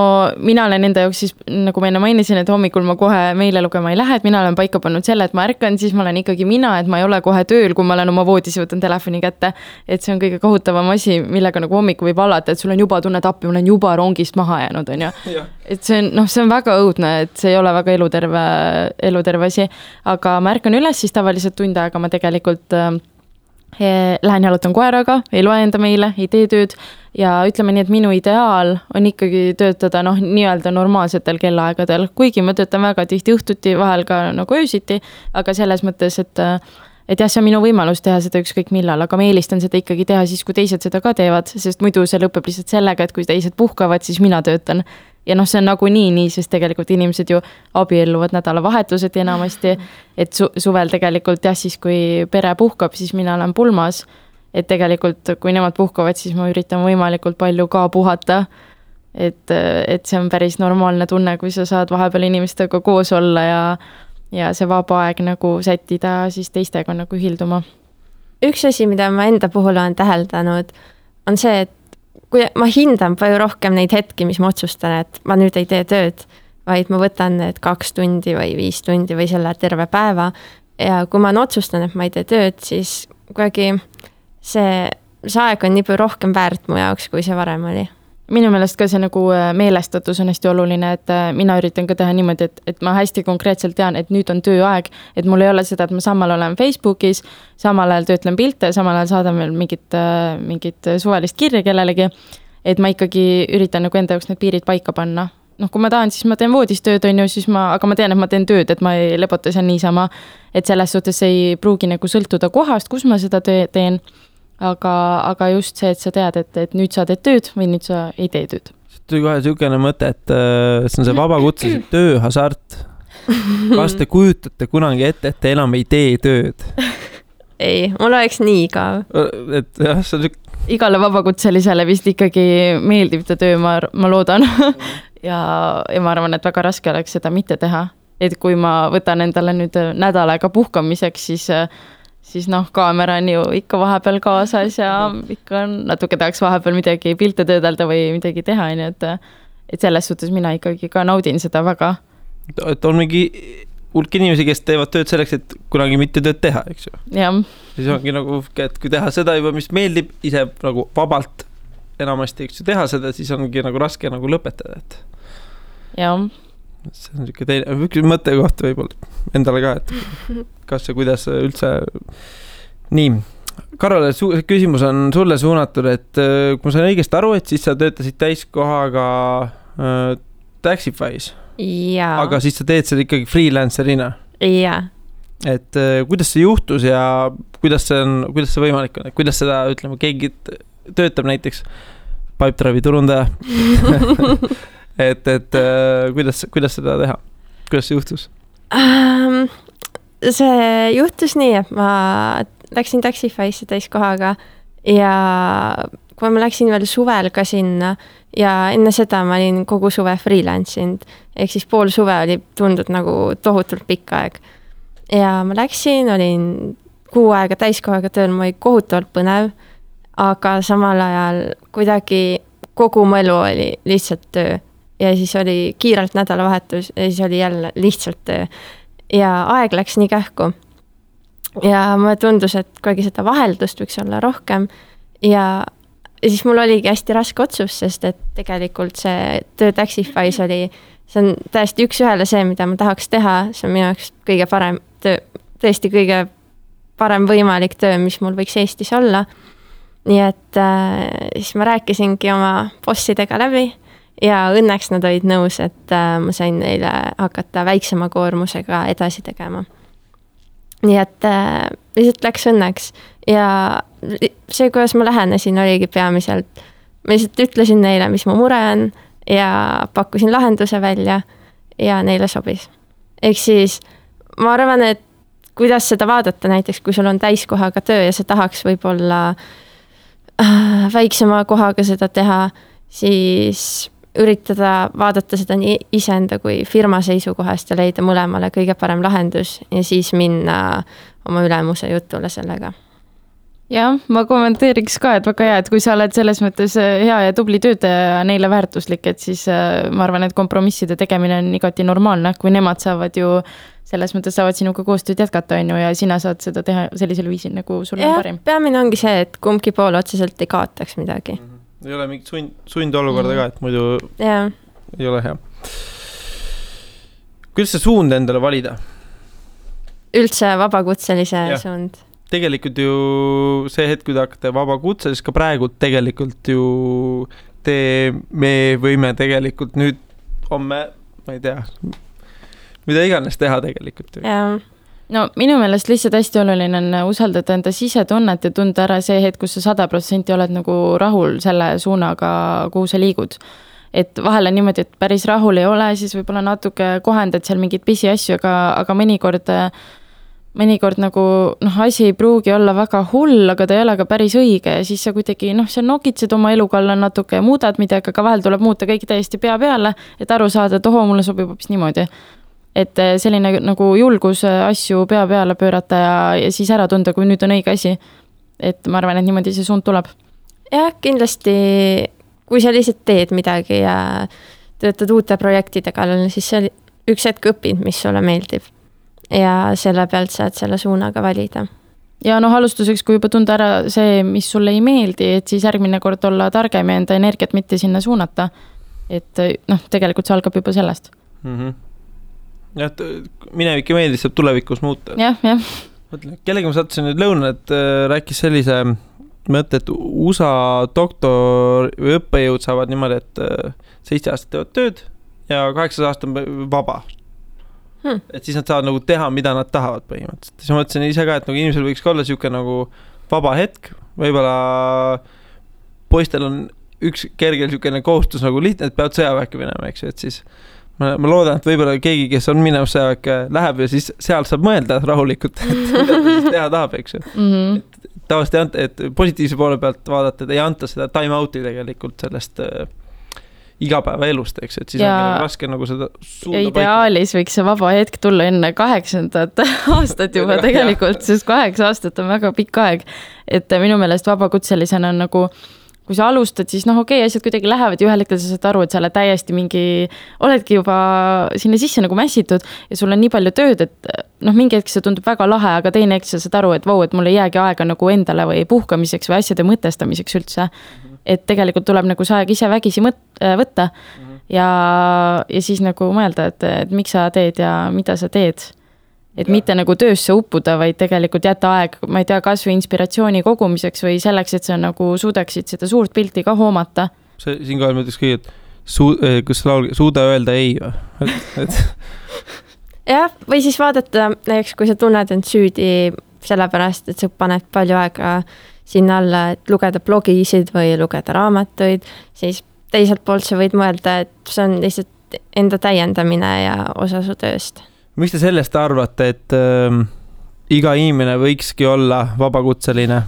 mina olen enda jaoks siis, nagu ma enne mainisin, et hommikul ma kohe meile lugema ei lähe, et mina olen paika pannud selle, et ma ärkan, siis ma olen ikkagi mina, et ma ei ole kohe tööl, kui ma olen oma voodis ja võtan telefoni kätte, et see on kõige kohutavam asi, millega hommiku võib alata, et sul on juba tunnet appi, ma olen juba rongist maha jäänud, on ju. Et see on väga õudne, et see ei ole väga eluterve asi, aga ma ärkan üles siis tavaliselt tund aega, ma tegelikult lähen jalutan koeraga, ei loe enda meile, ei tee tööd ja ütleme nii, et minu ideaal on ikkagi töötada nii-öelda normaalsetel kellaaegadel, kuigi ma töötan väga tihti õhtuti, vahel ka öösiti, aga selles mõttes, et et jah, see on minu võimalus teha seda ükskõik millal, aga ma eelistan seda ikkagi teha siis, kui teised seda ka teevad, sest muidu see lõpeb lihtsalt sellega, et kui teised puhkavad, siis mina töötan. Ja noh, see on nagu nii, sest tegelikult inimesed ju abielluvad nädalavahetused enamasti, et suvel tegelikult jah, siis kui pere puhkab, siis mina olen pulmas, et tegelikult kui nemad puhkavad, siis ma üritan võimalikult palju ka puhata, et see on päris normaalne tunne, kui sa saad vahepeal inimestega koos olla ja see vaba aeg nagu sättida siis teistega nagu ühilduma. Üks asi, mida ma enda puhul olen täheldanud, on see, et kui ma hindan palju rohkem neid hetki, mis ma otsustan, et ma nüüd ei tee tööd, vaid ma võtan need 2 tundi või 5 tundi või selle terve päeva. Ja kui ma otsustan, et ma ei tee tööd, siis kuidagi see aeg on nii palju rohkem väärt mu jaoks, kui see varem oli. Minu meelest ka see nagu meelestatus on hästi oluline, et mina üritan ka teha niimoodi, et ma hästi konkreetselt tean, et nüüd on tööaeg, et mul ei ole seda, et ma samal olen Facebookis, samal ajal töötlen pilte, samal ajal saadan veel mingit suvalist kirja kellelegi, et ma ikkagi üritan nagu enda jaoks need piirid paika panna. Noh, kui ma tahan, siis ma teen voodistööd, on ju, aga ma tean, et ma teen tööd, et ma ei lebota seal niisama, et selles suhtes ei pruugi nagu sõltuda kohast, kus ma seda teen. Aga just see, et sa tead, et nüüd sa teed tööd või nüüd sa ei tee tööd. See tuli kohe niisugune mõte, et see on see vabakutse tööhasart. Kas te kujutate kunagi ette, et te enam ei tee tööd? Ei, mul oleks nii ka. Et jah, see on igale vabakutselisele vist ikkagi meeldib ta töö, ma loodan. ja ma arvan, et väga raske oleks seda mitte teha. Et kui ma võtan endale nüüd nädal aega puhkamiseks, siis noh, kaamera on ju ikka vahepeal kaasas ja ikka natuke tahaks vahepeal midagi pilte töödelda või midagi teha, et selles suhtes mina ikkagi ka naudin seda väga. Et on mingi hulk inimesi, kes teevad tööd selleks, et kunagi mitte tööd teha, eks ju? Jah. Siis ongi nagu, et kui teha seda juba, mis meeldib ise nagu vabalt enamasti, eks ju, teha seda, siis ongi nagu raske nagu lõpetada, et jah. See on niisugune teine, üks mõtte kohta võib-olla endale ka, et kas ja kuidas üldse. Nii, Karole, küsimus on sulle suunatud, et kui ma sain õigesti aru, et siis sa töötasid täiskohaga Taxify's. Jaa. Aga siis sa teed seda ikkagi freelancerina. Jaa. Et kuidas see juhtus ja kuidas see võimalik on, et kuidas seda, ütleme, keegi töötab näiteks Pipedrive'i turundaja. et kuidas seda teha? Kuidas see juhtus? See juhtus nii, et ma läksin Taxify'sse täiskohaga ja kui ma läksin veel suvel ka sinna ja enne seda ma olin kogu suve freelance'inud, ehk siis pool suve oli tundnud nagu tohutult pikk aeg. Ja ma läksin, olin 6 aega täiskohaga tööl, ma oli kohutavalt põnev, aga samal ajal kuidagi kogu mu elu oli lihtsalt töö. Ja siis oli kiirelt nädalavahetus ja siis oli jälle lihtsalt töö. Ja aeg läks nii kähku. Ja mulle tundus, et kuidagi seda vaheldust võiks olla rohkem. Ja siis mul oligi hästi raske otsus, sest et tegelikult see töö Taxify's oli, see on täiesti üks ühele see, mida ma tahaks teha. See on minu jaoks kõige parem töö, tõesti kõige parem võimalik töö, mis mul võiks Eestis olla. Nii et siis ma rääkisingi oma bossidega läbi. Ja õnneks nad olid nõus, et ma sain neile hakata väiksema koormusega edasi tegema. Nii et lihtsalt läks õnneks. Ja see, kuidas ma lähenesin, oligi peamiselt. Ma lihtsalt ütlesin neile, mis mu mure on ja pakkusin lahenduse välja ja neile sobis. Ehk siis ma arvan, et kuidas seda vaadata näiteks, kui sul on täiskohaga töö ja sa tahaks võib-olla väiksema kohaga seda teha, siis üritada vaadata seda nii iseenda kui firma seisukohast ja leida mõlemale kõige parem lahendus ja siis minna oma ülemuse jutule sellega. Jah, ma kommenteeriks ka, et väga hea, et kui sa oled selles mõttes hea ja tubli töötaja ja neile väärtuslik, et siis ma arvan, et kompromisside tegemine on igati normaalne, kui nemad saavad ju selles mõttes saavad sinuga koostööd jätkata, on ju, ja sina saad seda teha sellisel viisil, nagu sul on parim. Peamine ongi see, et kumbki pool otseselt ei kaotaks midagi. Ei ole mingit sundolukorda ka, et muidu ei ole hea. Kuidas see suund endale valida? Üldse vabakutselise suund. Tegelikult ju see hetk, kui te hakkate vabakutse, siis ka praegu tegelikult ju me võime tegelikult nüüd homme, ma ei tea, mida iganes teha tegelikult ju. no minu meelest lihtsalt hästi oluline on usaldada enda sisetunnet ja tunda ära see hetk, kus sa 100% oled nagu rahul selle suunaga, kuhu sa liigud. Et vahel on niimoodi, et päris rahul ei ole, siis võib-olla natuke kohendad seal mingid pisiasju, aga mõnikord nagu asi ei pruugi olla väga hull, aga ta ei ole ka päris õige ja siis sa kuidagi sa nokitsed oma elu kalla natuke ja muudad midagi, aga vahel tuleb muuta kõik täiesti pea peale, et aru saada, et mulle sobib hoopis niimoodi. Et selline nagu julgus asju pea peale pöörata ja siis ära tunda, kui nüüd on õige asi. Et ma arvan, et niimoodi see suund tuleb. Jah, kindlasti, kui sa lihtsalt teed midagi ja töötad uute projektide kallal, siis sa üks hetk õpid, mis sulle meeldib. Ja selle pealt saad selle suunaga valida. Ja alustuseks, kui juba tunda ära see, mis sulle ei meeldi, et siis järgmine kord olla targem ja enda energiat mitte sinna suunata. Et tegelikult see algab juba sellest. Ja, minevik ei meeldis, saab tulevikus muuta. Jah. Kellega ma sattusin nüüd lõuna, et rääkis sellise mõtte, et USA doktor või õppejõud saavad niimoodi, et 7 aastat teevad tööd ja 8 aastat on vaba. Et siis nad saavad nagu teha, mida nad tahavad põhimõtteliselt. Siis ma mõtlesin ise ka, et nagu inimesel võiks olla siuke nagu vaba hetk. Võibolla poistel on üks kergel siukene kohustus nagu lihtne, et peavad sõjaväkke minema, eks ju, et siis ma loodan, et võibolla keegi, kes on minev sõjaväkke, läheb ja siis seal saab mõelda rahulikult, et mida ta siis teha tahab, eks ju. Tavaliselt ei anta, et positiivse poole pealt vaadata, et ei anta seda time out'i tegelikult sellest igapäeva elust, eks, et siis on raske nagu seda suunda ja ideaalis võiks see vaba hetk tulla enne 8. aastat juba tegelikult, sest 8 aastat on väga pikk aeg. Et minu meelest vabakutselisena on nagu, kui sa alustad, siis okei, asjad kuidagi lähevad ja ühel hetkel sa saad aru, et sa oled täiesti oledki juba sinna sisse nagu mässitud ja sul on nii palju tööd, et mingi hetk see tundub väga lahe, aga teine hetk sa saad aru, et vau, et mul ei jäägi aega nagu endale või puhkamiseks või asjade mõtestamiseks üldse. Et tegelikult tuleb nagu see aeg ise vägisi võtta ja siis nagu mõelda, et miks sa teed ja mida sa teed. Et mitte nagu töösse uppuda, vaid tegelikult jätta aeg, ma ei tea, kas või inspiratsiooni kogumiseks või selleks, et sa nagu suudaksid seda suurt pilti ka hoomata. Siin kohe mõtleks kõige, et kus suuda öelda ei või? Jah, või siis vaadata, näiteks kui sa tunned end süüdi sellepärast, et sa paned palju aega sinna alla, et lugeda blogisid või lugeda raamatuid, siis teiselt poolt sa võid mõelda, et see on lihtsalt enda täiendamine ja osa su tööst. Mis te sellest arvate, et iga inimene võikski olla vabakutseline?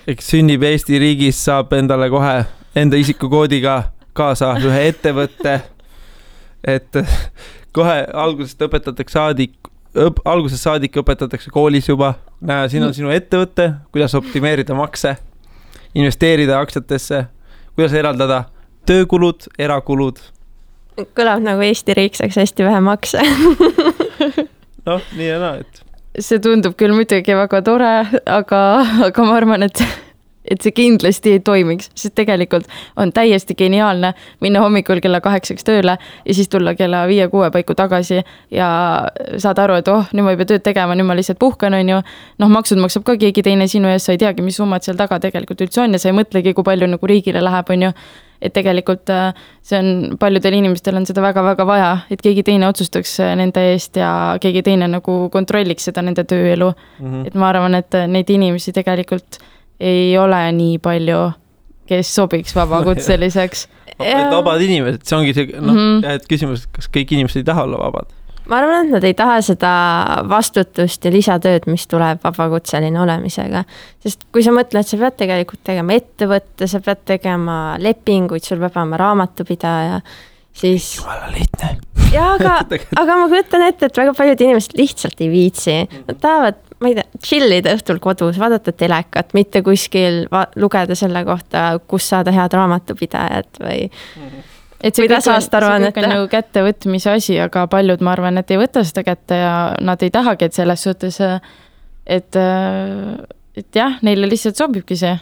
Eks sünnib Eesti riigis, saab endale kohe enda isikukoodiga kaasa ühe ettevõtte, et kohe algusest algusest saadik õpetatakse koolis juba. Näe, siin on sinu ettevõtte, kuidas optimeerida makse, investeerida aktsiatesse, kuidas eraldada töökulud, erakulud. Kõlab nagu Eesti riik saaks hästi vähe makse. Nii ja naa, et. See tundub küll muidugi väga tore, aga ma arvan, et see kindlasti ei toimiks, sest tegelikult on täiesti geniaalne minna hommikul kella 8 tööle ja siis tulla kella 5-6 paiku tagasi ja saad aru, et nüüd ma ei pea tööd tegema, nüüd ma lihtsalt puhkan, on ju. Maksud maksab ka keegi teine sinu ees, sa ei teagi, mis summad seal taga tegelikult üldse on ja sa ei mõtlegi, kui palju nagu riigile läheb, on ju. Et tegelikult see on, paljudel inimestel on seda väga-väga vaja, et keegi teine otsustaks nende eest ja keegi teine nagu kontrolliks seda nende tööelu. Et ma arvan, et neid inimesi tegelikult ei ole nii palju, kes sobiks vabakutseliseks. Vabad inimesed, see ongi see, et küsimus, kas kõik inimesed ei taha olla vabad? Ma arvan, et nad ei taha seda vastutust ja lisatööd, mis tuleb vabakutseline olemisega. Sest kui sa mõtled, sa pead tegelikult tegema ettevõtte, sa pead tegema lepinguid, sul peab olema raamatupidaja, siis... Jumala lihtne. Ja, aga ma kujutan ette, et väga paljud inimesed lihtsalt ei viitsi. Nad tahavad, ma ei tea, chillida õhtul kodus, vaadata telekat, mitte kuskil lugeda selle kohta, kus saada head raamatupidajad või... Et see kõik on nagu kättevõtmise asi, aga paljud, ma arvan, et ei võta seda kätte ja nad ei tahagi, et selles suhtes, et jah, neile lihtsalt sobibki see.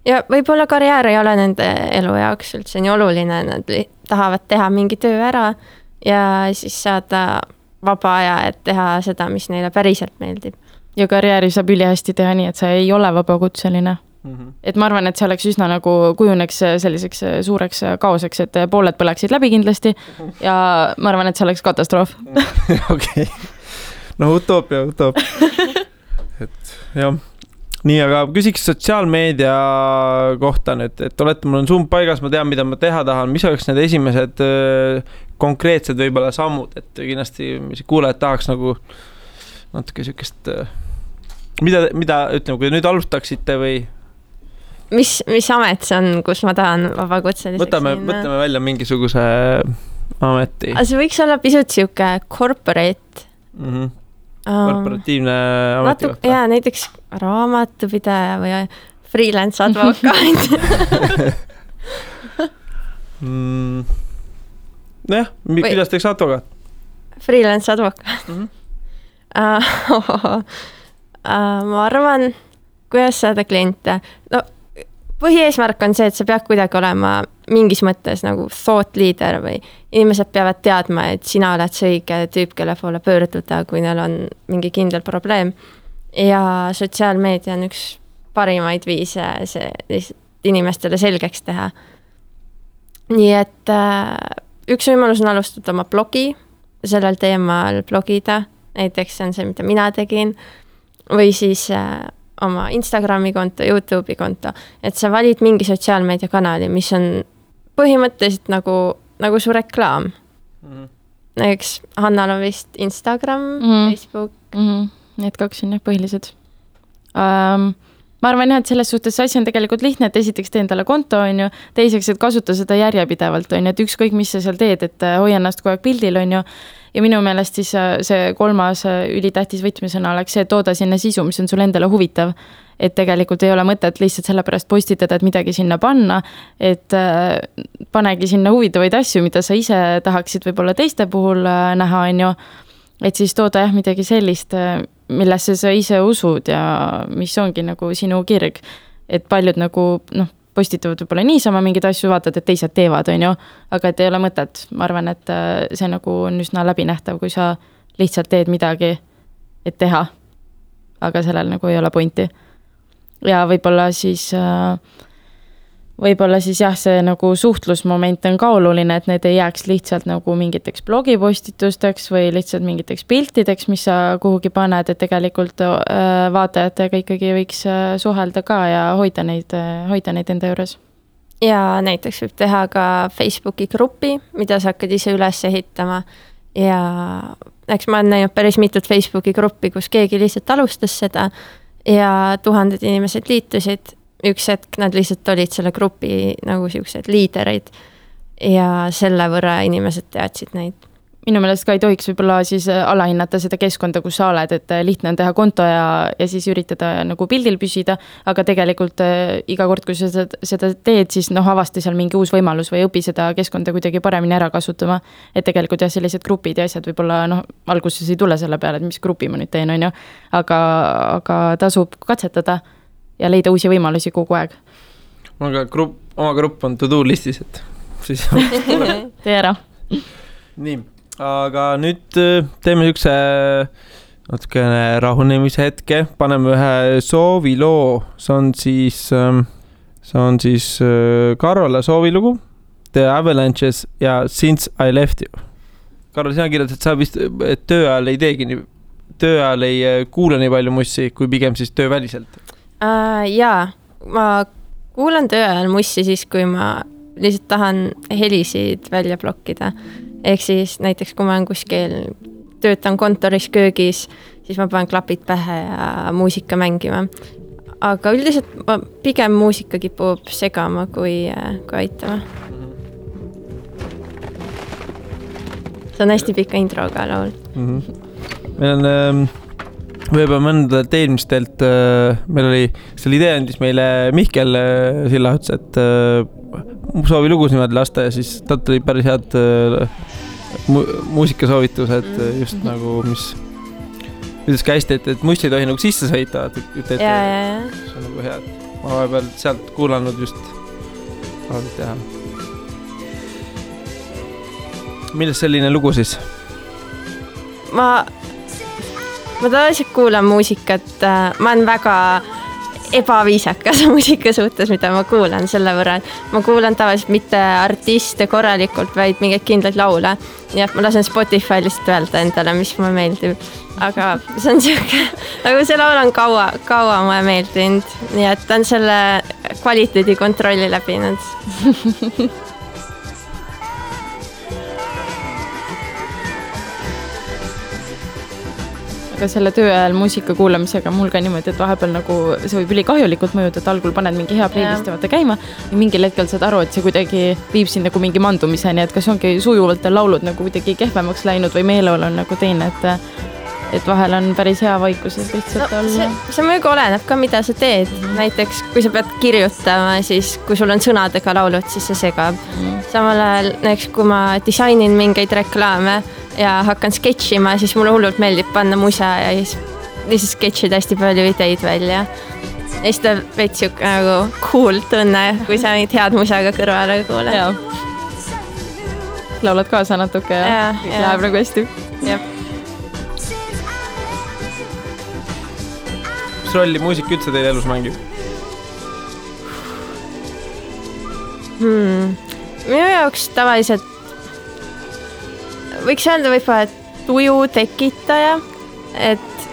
Ja võib-olla karjäär ei ole nende elu jaoks üldse nii oluline, nad tahavad teha mingi töö ära ja siis saada vaba aja, et teha seda, mis neile päriselt meeldib. Ja karjääri saab ülihästi teha nii, et sa ei ole vabakutseline. Et ma arvan, et see oleks üsna nagu kujuneks selliseks suureks kaoseks, et pooled põleksid läbi kindlasti ja ma arvan, et see oleks katastroof. Okei. no utoopia. Et jah. Nii, aga küsiks sotsiaalmeedia kohta nüüd, et olete, mul on sumb paigas, ma tean, mida ma teha tahan, mis oleks need esimesed konkreetsed võibolla sammud, et kindlasti kuulajad tahaks nagu natuke sükest, mida ütleme, kui nüüd alustaksite või? Mis amet see on, kus ma tahan vabakutseliseks võtame välja mingisuguse ameti. See võiks olla pisut siuke corporate. Korporatiivne ametikohta. Jaa, näiteks raamatupidaja või freelance advokaat. Jah, kuidas teeks advokaat? Freelance advokaat. Ma arvan, kuidas saada kliente. No, põhieesmärk on see, et sa pead kuidagi olema mingis mõttes nagu thought leader või inimesed peavad teadma, et sina oled see õige tüüp, kelle poole pöörduda, kui neil on mingi kindel probleem. Ja sotsiaalmeedia on üks parimaid viise see lihtsalt inimestele selgeks teha. Nii et üks võimalus on alustada oma blogi, sellel teemal blogida, näiteks on see, mida mina tegin, või siis oma Instagrami konto, YouTube'i konto, et sa valid mingi sotsiaalmeedia kanali, mis on põhimõtteliselt nagu su reklaam. Näiteks Hannal on vist Instagram, Facebook. Need kaks on jah põhilised. Ma arvan jah, et selles suhtes asi on tegelikult lihtne, et esiteks tee endale konto, on ju, teiseks, et kasuta seda järjepidevalt, on ju, et ükskõik, mis sa seal teed, et hoia ennast kogu aeg pildil, on ju, ja minu meelest siis see kolmas ülitähtis võtmesõna oleks see, et tooda sinna sisu, mis on sul endale huvitav. Et tegelikult ei ole mõtet lihtsalt selle pärast postitada, et midagi sinna panna, et panegi sinna huvitavaid asju, mida sa ise tahaksid võib-olla teiste puhul näha, on ju. Et siis tooda jah midagi sellist, millesse sa ise usud ja mis ongi nagu sinu kirg. Et paljud nagu postitavad võib-olla niisama mingid asju, vaatad, et teised teevad, on ju, aga et ei ole mõtet. Ma arvan, et see nagu on üsna läbinähtav, kui sa lihtsalt teed midagi, et teha, aga sellel nagu ei ole pointi. Ja võib-olla siis jah, see nagu suhtlusmoment on ka oluline, et need ei jääks lihtsalt nagu mingiteks blogipostitusteks või lihtsalt mingiteks piltideks, mis sa kuhugi paned, et tegelikult vaatajatega ikkagi võiks suhelda ka ja hoida neid enda juures. Ja näiteks võib teha ka Facebooki gruppi, mida sa hakkad ise üles ehitama ja eks ma olen näinud päris mitut Facebooki gruppi, kus keegi lihtsalt alustas seda ja 1000 inimesed liitusid. Üks hetk nad lihtsalt olid selle grupi nagu siuksed liiderid ja selle võrra inimesed teadsid neid. Minu meelest ka ei tohiks võib-olla siis alahinnata seda keskkonda, kus sa oled, et lihtne on teha konto ja siis üritada nagu pildil püsida, aga tegelikult iga kord, kui sa seda teed, siis avasti seal mingi uus võimalus või õpi seda keskkonda kuidagi paremini ära kasutama. Et tegelikult jah, sellised grupid ja asjad võib-olla alguses ei tule selle peale, et mis grupi ma nüüd teen, on ju, aga tasub katsetada ja leida uusi võimalusi kogu aeg. Oma grupp on to-do listis, et siis tee ära. Nii, aga nüüd teeme ükse natukene rahunemise hetke, paneme ühe sooviloo, see on siis Karola soovilugu, The Avalanches ja Since I Left You. Karol, sina kirjad, et sa vist töö ajal ei teegi töö ajal ei kuule nii palju mussi, kui pigem siis tööväliselt. Jaa, ma kuulan töö ajal mussi siis, kui ma lihtsalt tahan helisid välja blokkida. Ehk siis näiteks, kui ma olen kuskil töötan kontoris köögis, siis ma panen klapid pähe ja muusika mängima. Aga üldiselt ma pigem muusika kipub segama kui aitama. See on hästi pika introga laul. Meil on võib-olla mõndadelt eelmistelt, meil oli, selle idee andis meile Mihkel Sillahuts, et soovi lugus niimoodi lasta ja siis talt oli päris head muusikasoovitused just nagu, mis ütles ka hästi, et mussi ei tohi nagu sisse sõita. Ja. See on nagu hea, et ma vahepeal sealt kuulanud just teha. Millest selline lugu siis? Ma tavaliselt kuulan muusikat, ma olen väga ebaviisakas muusika suhtes, mida ma kuulan selle võrra. Ma kuulan tavaliselt mitte artiste korralikult, vaid mingeid kindlaid laule. Nii et ma lasen Spotify lihtsalt öelda endale, mis mulle meeldib. Aga see on siuke, nagu see laul on kaua mulle meeldinud. Nii et ta on selle kvaliteedi kontrolli läbinud. Aga selle töö ajal muusika kuulamisega mul ka niimoodi, et vahepeal nagu see võib ülikahjulikult mõjuda, et algul paned mingi hea playlisti vaata käima ja mingil hetkel saad aru, et see kuidagi viib sind nagu mingi mandumiseni, et kas ongi sujuvalt laulud nagu kuidagi kehvemaks läinud või meeleolu on nagu teine, et vahel on päris hea vaikuses lihtsalt olla. See muidugi oleneb ka, mida sa teed. Näiteks, kui sa pead kirjutama, siis kui sul on sõnadega laulud, siis see segab. Samal ajal, näiteks kui ma disainin mingeid reklaame ja hakkan sketšima, siis mulle hullult meeldib panna musa ja siis sketšida hästi palju ideid välja. Ja siis ta veits siuke nagu cool tunne, kui sa neid head musaga kõrvale kuule. Laulad kaasa natuke ja läheb nagu hästi. Jep. Mis rolli muusika üldse teil elus mängib? Minu jaoks tavaliselt võiks öelda võib-olla tuju tekitaja, et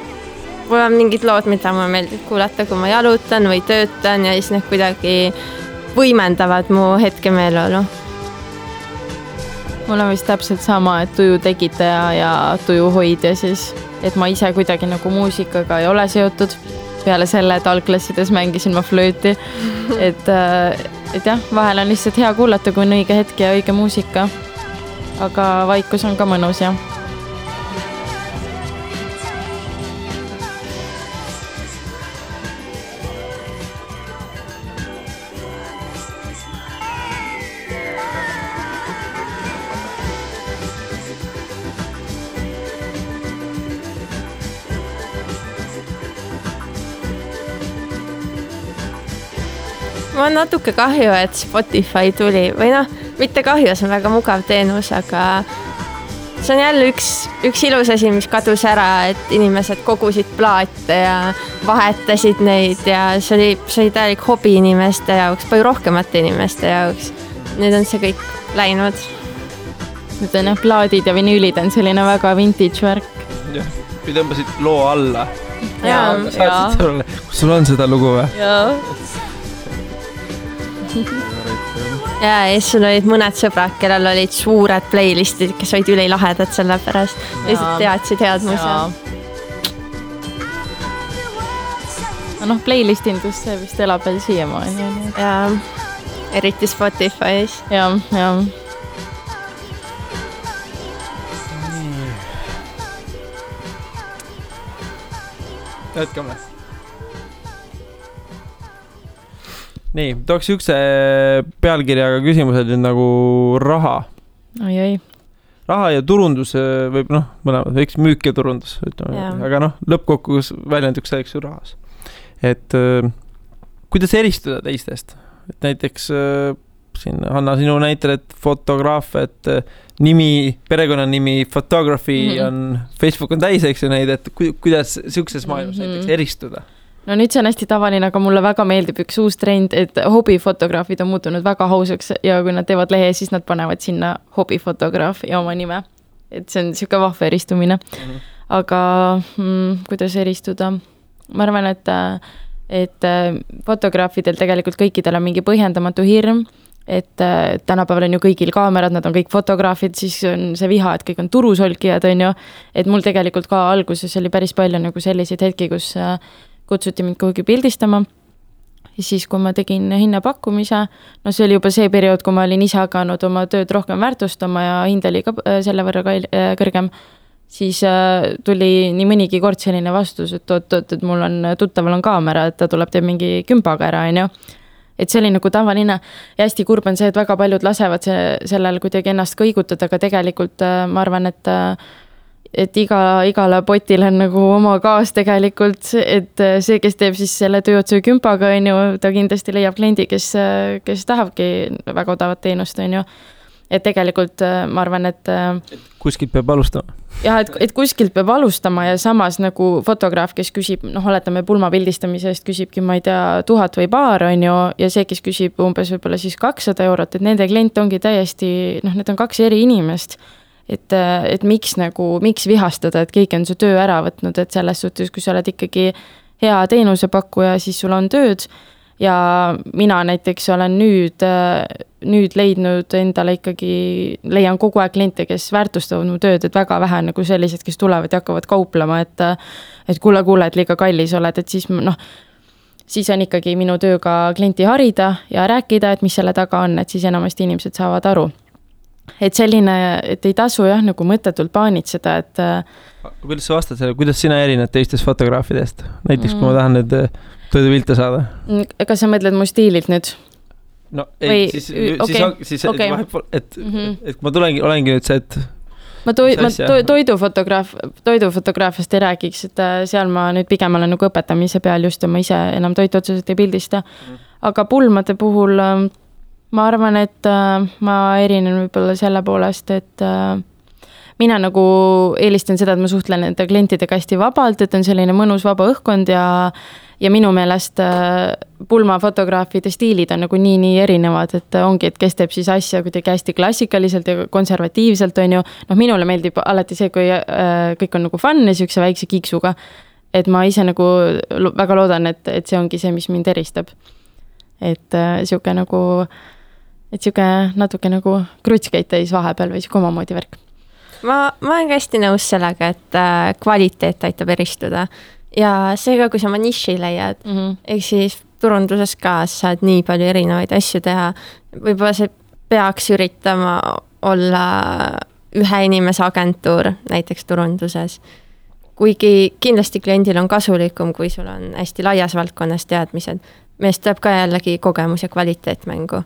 mul on mingid lood, mida mulle meeldib kuulata, kui ma jalutan või töötan ja siis need kuidagi võimendavad mu hetke meeleolu. Mul on vist täpselt sama, et tuju tekitaja ja tuju hoidja siis, et ma ise kuidagi nagu muusikaga ei ole seotud. Peale selle, et algklassides mängisin ma flööti, et jah, vahel on lihtsalt hea kuulata, kui on õige hetk ja õige muusika. Aga vaikus on ka mõnus, jah. Mul on natuke kahju, et Spotify tuli või mitte kahju, see on väga mugav teenus, aga see on jälle üks ilus asi, mis kadus ära, et inimesed kogusid plaate ja vahetasid neid ja see oli täielik hobi inimeste jaoks, palju rohkemate inimeste jaoks. Nüüd on see kõik läinud. Nüüd on plaadid ja vinüülid on selline väga vintage värk. Jah, või tõmbasid loo alla. Ja. Kus sul on seda lugu või? Jaa. Ja siis sul olid mõned sõbrad, kellel olid suured playlistid, kes olid ülilahedad selle pärast. Lihtsalt teadsid head musa. No playlistindus see vist elab veel siiamaani. Ja eriti Spotify's. Ja. Jätkame. Nii, tooks ükse pealkirjaga küsimused nagu raha. Oi. Raha ja turundus võib, mõlemad, eks müük ja turundus, aga lõppkokkus väljenduks selleks ju rahas. Et kuidas eristuda teistest? Et näiteks siin Hanna sinu näitel, et fotograaf, et perekonnanimi photography on, Facebook on täis, eks ju neid, et kuidas siukses maailmas näiteks eristuda? No nüüd see on hästi tavaline, aga mulle väga meeldib üks uus trend, et hobifotograafid on muutunud väga hausaks ja kui nad teevad lehe, siis nad panevad sinna hobifotograaf ja oma nime. Et see on siuke vahva eristumine. Aga kuidas eristuda? Ma arvan, et fotograafidel tegelikult kõikidel on mingi põhjendamatu hirm, et tänapäeval on ju kõigil kaamerad, nad on kõik fotograafid, siis on see viha, et kõik on turusolkijad, on ju. Et mul tegelikult ka alguses oli päris palju nagu selliseid hetki, kus kutsuti mind kuhugi pildistama. Ja siis, kui ma tegin hinnapakkumise, see oli juba see periood, kui ma olin ise hakanud oma tööd rohkem väärtustama ja hind oli ka selle võrra kõrgem, siis tuli nii mõnigi kord selline vastus, et mul on tuttaval on kaamera, et ta tuleb teeb mingi kümpaga ära, on ju. Et see oli nagu tavaline ja hästi kurb on see, et väga paljud lasevad sellel kuidagi ennast kõigutada, aga tegelikult ma arvan, et igale potil on nagu oma kaas tegelikult, et see, kes teeb siis selle tööotsu kümpaga, on ju, ta kindlasti leiab kliendi, kes tahabki väga odavat teenust, on ju. et tegelikult ma arvan, et kuskilt peab alustama. Jah, et kuskilt peab alustama ja samas nagu fotograaf, kes küsib, oletame pulma pildistamise eest küsibki, ma ei tea, 1000 või paar on ju, ja see, kes küsib umbes võib-olla siis 200 €, et nende klient ongi täiesti, need on 2 eri inimest. Et miks vihastada, et keegi on su töö ära võtnud, et selles suhtes, kui sa oled ikkagi hea teenusepakkuja, siis sul on tööd. Ja mina näiteks olen nüüd leidnud endale ikkagi, leian kogu aeg kliente, kes väärtustavad mu tööd, et väga vähe nagu sellised, kes tulevad ja hakkavad kauplema, et kuule, et liiga kallis oled, et siis on ikkagi minu tööga klienti harida ja rääkida, et mis selle taga on, et siis enamasti inimesed saavad aru. Et selline, et ei tasu jah, nagu mõttetult paanitseda, et kuidas sa vastad selle, kuidas sina erined teistest fotograafidest? Näiteks, kui ma tahan need toidupilte saada. Kas sa mõtled mu stiililt nüüd? No ei, siis vahepool, et ma olengi nüüd see, et ma toidufotograafiast ei räägiks, et seal ma nüüd pigem olen nagu õpetamise peal just ja ma ise enam toitu otseselt ei pildista. Aga pulmade puhul ma arvan, et ma erinen võib-olla selle poolest, et mina nagu eelistan seda, et ma suhtlen nende klientidega hästi vabalt, et on selline mõnus vaba õhkkond ja minu meelest pulmafotograafide stiilid on nagu nii erinevad, et ongi, et kes teeb siis asja kuidagi hästi klassikaliselt ja konservatiivselt on ju. Minule meeldib alati see, kui kõik on nagu fun ja siukse väikse kiksuga, et ma ise nagu väga loodan, et see ongi see, mis mind eristab. Et siuke nagu, et siuke natuke nagu krutskeid täis vahepeal või siuke omamoodi värk. Ma olen hästi nõus sellega, et kvaliteet aitab eristuda ja seega, kui sa oma niši leiad, ehk siis turunduses ka saad nii palju erinevaid asju teha, võib-olla see peaks üritama olla ühe inimese agentuur näiteks turunduses, kuigi kindlasti kliendil on kasulikum, kui sul on hästi laias valdkonnas teadmised, meest tuleb ka jällegi kogemus ja kvaliteet mängu.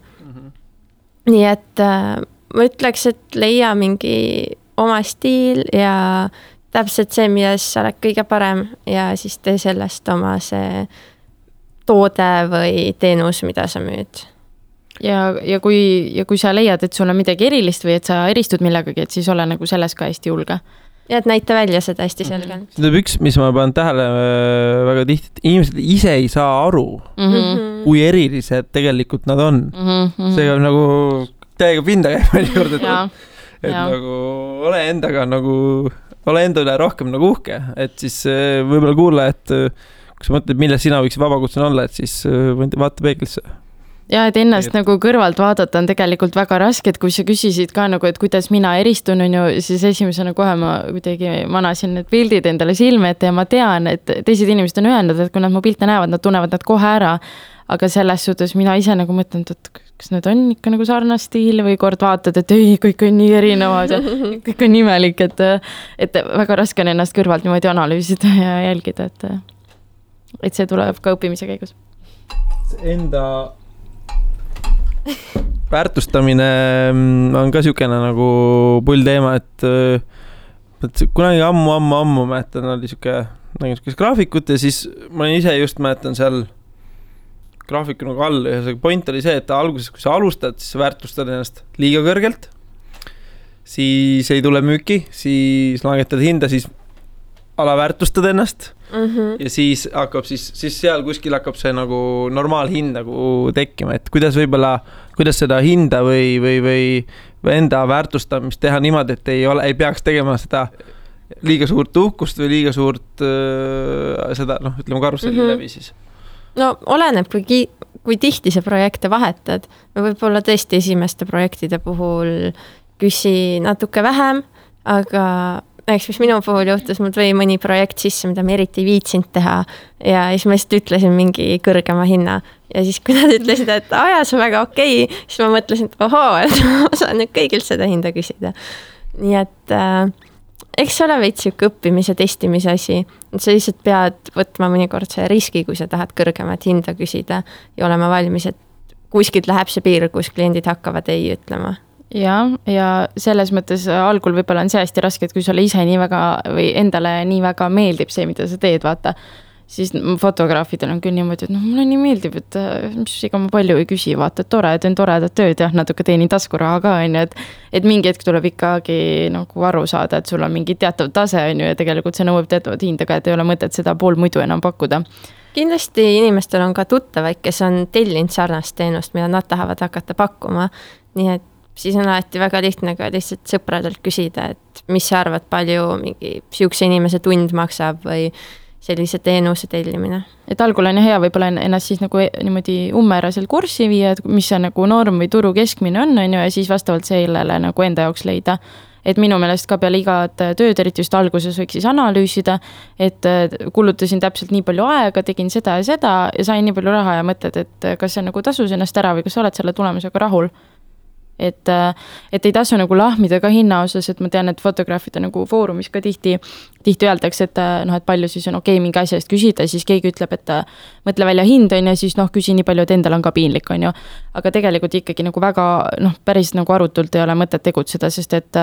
Nii et ma ütleks, et leia mingi oma stiil ja täpselt see, milles sa oled kõige parem ja siis tee sellest oma see toode või teenus, mida sa müüd. Ja kui sa leiad, et sul on midagi erilist või et sa eristud millegagi, et siis ole nagu selles ka hästi julge. Ja et näita välja seda hästi selgelt. See on üks, mis ma panen tähele väga tihti, et inimesed ise ei saa aru, kui erilised tegelikult nad on. See on nagu täiega pinda käib juurde, et nagu ole enda üle rohkem nagu uhke, et siis võib-olla kuule, et kui sa mõtled, mille sina võiks vabakutsen olla, et siis vaata peeglisse. Ja, et ennast nagu kõrvalt vaadata on tegelikult väga raske, et kui sa küsisid ka nagu, et kuidas mina eristun, on ju, siis esimesena kohe ma kuidagi manasin need pildid endale silme ette ja ma tean, et teised inimesed on öelnud, et kui nad mu pilte näevad, nad tunnevad nad kohe ära, aga selles suhtes mina ise nagu mõtlen, et kas need on ikka nagu sarnast stiil või kord vaatad, et ei, kõik on nii erinevad ja kõik on imelik, et väga raske on ennast kõrvalt niimoodi analüüsida ja jälgida, et see tuleb ka õppimise käigus. Enda väärtustamine on ka siukene nagu pull teema, et kunagi ammu mäletan, oli siuke graafikut ja siis ma ise just mäletan seal graafiku nagu all ja see point oli see, et alguses, kui sa alustad, siis sa väärtustad ennast liiga kõrgelt, siis ei tule müüki, siis langetad hinda, siis alaväärtustad ennast ja siis hakkab siis seal kuskil hakkab see nagu normaalhind nagu tekkima, et kuidas seda hinda või enda väärtustamist teha niimoodi, et ei peaks tegema seda liiga suurt uhkust või liiga suurt seda, ütleme karusselli läbi siis. No oleneb, kui tihti see projekte vahetad. Võib-olla tõesti esimeste projektide puhul küsi natuke vähem, aga näiteks, mis minu puhul juhtus, mul tuli mõni projekt sisse, mida ma eriti ei viitsinud teha ja siis ma lihtsalt ütlesin mingi kõrgema hinna ja siis kui nad ütlesid, et see on väga okei, siis ma mõtlesin, et et ma saan nüüd kõigilt seda hinda küsida. Nii et eks ole veits siuke õppimise, testimise asi. Sa lihtsalt pead võtma mõnikord see riski, kui sa tahad kõrgemat hinda küsida ja olema valmis, et kuskilt läheb see piir, kus kliendid hakkavad ei ütlema. Ja selles mõttes algul võib-olla on see hästi raske, et kui sulle ise nii väga või endale nii väga meeldib see, mida sa teed, vaata, siis fotograafidel on küll niimoodi, et mulle nii meeldib, et mis ega ma palju ei küsi, vaata, et tore, teen toredat tööd ja natuke teenin taskuraha ka, on ju, et mingi hetk tuleb ikkagi nagu aru saada, et sul on mingi teatav tase, on ju, ja tegelikult see nõuab teatavat hindaga, et ei ole mõtet seda pool muidu enam pakkuda. Kindlasti inimestel on ka tuttavaid, kes on tellinud sarnast teenust, mida nad tahavad hakata pakkuma, nii et siis on alati väga lihtne ka lihtsalt sõpradelt küsida, et mis sa arvad, palju mingi siukse inimese tund maksab või sellise teenuse tellimine. Et algul on hea võib-olla ennast siis nagu niimoodi ummeraselt kurssi viia, et mis see nagu norm või turu keskmine on ju, ja siis vastavalt sellele nagu enda jaoks leida. Et minu meelest ka peale igat tööd, eriti just alguses võiks siis analüüsida, et kulutasin täpselt nii palju aega, tegin seda ja sain nii palju raha ja mõtled, et kas see nagu tasus ennast ära või kas sa oled selle tulemusega rahul. Et ei tasu nagu lahmida ka hinna osas, et ma tean, et fotograafide nagu foorumis ka tihti öeldakse, et et palju siis on okei mingi asja eest küsida, siis keegi ütleb, et mõtle välja hind on ja siis küsi nii palju, et endal on ka piinlik on ju. Aga tegelikult ikkagi nagu väga päris nagu arutult ei ole mõtet tegutseda, sest et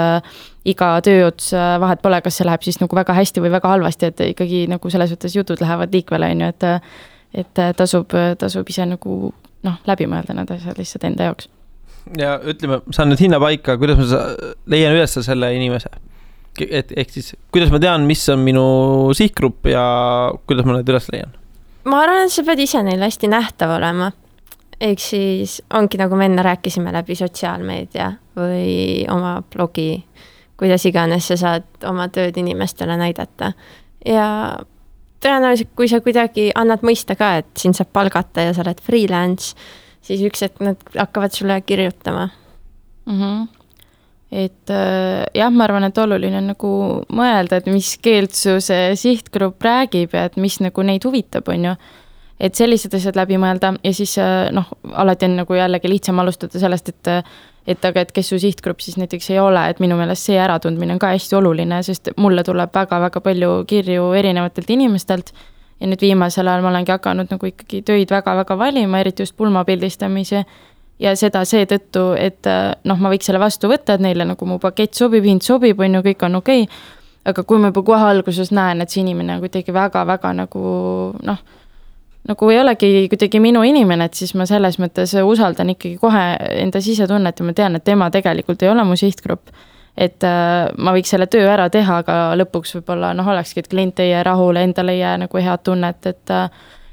iga tööots vahet pole, kas see läheb siis nagu väga hästi või väga halvasti, et ikkagi nagu selles mõttes jutud lähevad liikvele on ju, et tasub ise nagu läbi mõelda need asjad lihtsalt enda jaoks. Ja ütleme, saan nüüd hinna paika, kuidas ma leian üles selle inimese. Ehk siis, kuidas ma tean, mis on minu sihtgrupp ja kuidas ma need üles leian? Ma arvan, et sa pead ise neil hästi nähtav olema. Ehk siis ongi nagu me enne rääkisime läbi sotsiaalmeedia või oma blogi, kuidas iganes sa saad oma tööd inimestele näidata. Ja tõenäoliselt, kui sa kuidagi annad mõista ka, et siin saab palgata ja sa oled freelance, siis üks, et nad hakkavad sulle kirjutama. Et jah, ma arvan, et oluline on nagu mõelda, et mis keelt su see sihtgrupp räägib ja et mis nagu neid huvitab, on ju. Et sellised asjad läbi mõelda ja siis alati on nagu jällegi lihtsam alustada sellest, et kes su sihtgrupp siis näiteks ei ole, et minu meelest see äratundmine on ka hästi oluline, sest mulle tuleb väga-väga palju kirju erinevatelt inimestelt. Ja nüüd viimasel ajal ma olengi hakanud nagu ikkagi töid väga-väga valima, eriti just pulmapildistamise ja seda seetõttu, et ma võiks selle vastu võtta, et neile nagu mu pakett sobib, hind sobib, on ju, kõik on okei. Aga kui ma juba kohe alguses näen, et see inimene kuidagi väga-väga nagu ei olegi kuidagi minu inimene, et siis ma selles mõttes usaldan ikkagi kohe enda sisetunnet ja ma tean, et tema tegelikult ei ole mu sihtgrupp. Et ma võiks selle töö ära teha, aga lõpuks võib-olla olekski, et klient ei jää rahule, endale ei jää nagu head tunnet,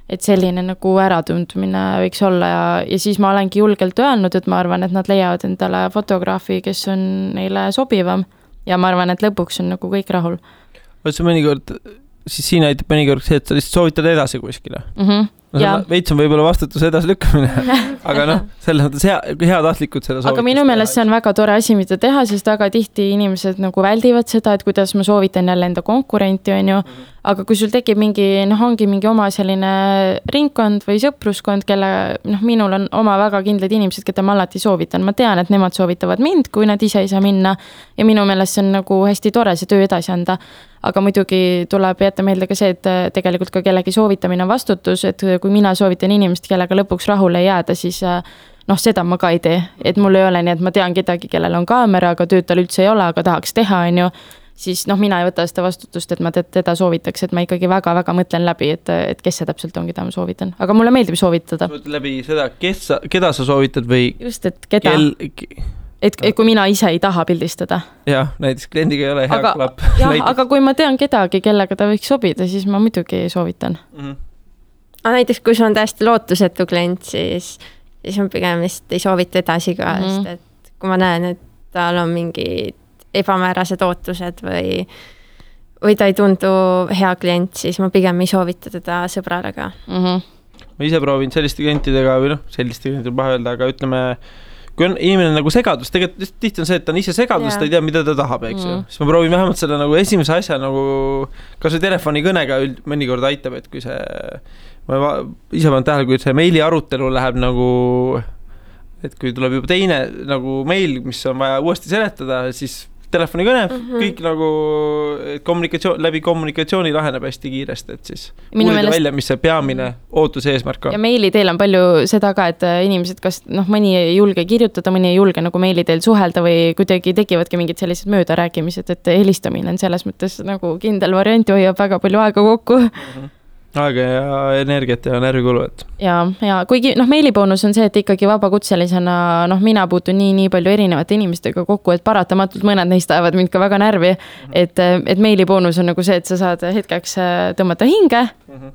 et selline nagu äratundmine võiks olla ja siis ma olengi julgelt öelnud, et ma arvan, et nad leiavad endale fotograafi, kes on neile sobivam ja ma arvan, et lõpuks on nagu kõik rahul. Võtse mõnikord, siis siin aitab mõnikord see, et sa lihtsalt soovitad edasi kuskile. Veits on võib-olla vastutuse edasi lükkamine, aga selles mõttes hea tahtlikud seda soovitust. Aga minu meelest see on väga tore asi, mida teha, sest väga tihti inimesed nagu väldivad seda, et kuidas ma soovitan jälle enda konkurenti, on ju. Aga kui sul tekib ongi mingi oma selline ringkond või sõpruskond, kelle minul on oma väga kindlad inimesed, keda ma alati soovitan. Ma tean, et nemad soovitavad mind, kui nad ise ei saa minna ja minu meelest see on nagu hästi tore see töö edasi anda. Aga muidugi tuleb jätta meelde ka see, et tegelikult ka kellegi soovitamine on vastutus, et kui mina soovitan inimest, kellega lõpuks rahule ei jääda, siis seda ma ka ei tee. Et mul ei ole nii, et ma tean kedagi, kellel on kaamera, aga tööd tal üldse ei ole, aga tahaks teha, on ju. Siis mina ei võta seda vastutust, et ma teda soovitaks, et ma ikkagi väga-väga mõtlen läbi, et kes see täpselt on, keda ma soovitan. Aga mulle meeldib soovitada. Läbi seda, keda sa soovitad või? Just, et keda? Et kui mina ise ei taha pildistada. Jah, näiteks kliendiga ei ole hea klapp. Aga kui ma tean kedagi, kellega ta võiks sobida, siis ma muidugi soovitan. Aga näiteks, kui see on täiesti lootusetu klient, siis on pigem vist ei soovita edasi ka, sest et kui ma näen, et tal on mingid ebamäärased ootused või ta ei tundu hea klient, siis ma pigem ei soovita teda sõbrale ka. Ma ise proovin selliste klientidega või selliste klientidega paha öelda, aga ütleme, kui on inimene nagu segadus, tegelikult tihti on see, et ta on ise segadus, ta ei tea, mida ta tahab, eks ju. Siis ma proovin vähemalt selle nagu esimese asja nagu, kas see telefonikõnega mõnikord aitab, et kui see, ma ise panen tähele, kui see meili arutelu läheb nagu, et kui tuleb juba teine nagu meil, mis on vaja uuesti seletada, siis telefonikõne, kõik nagu läbi kommunikatsiooni laheneb hästi kiiresti, et siis uurida välja, mis see peamine ootus eesmärk on. Ja meili teel on palju seda ka, et inimesed kas mõni ei julge kirjutada, mõni ei julge nagu meili teel suhelda või kuidagi tekivadki mingid sellised möödarääkimised, et helistamine on selles mõttes nagu kindel variant, hoiab väga palju aega kokku. aega ja energiat ja närvikulu, et. Ja kuigi meiliboonus on see, et ikkagi vabakutselisena, mina puutun nii palju erinevate inimestega kokku, et paratamatult mõned neist ajavad mind ka väga närvi, et meiliboonus on nagu see, et sa saad hetkeks tõmmata hinge,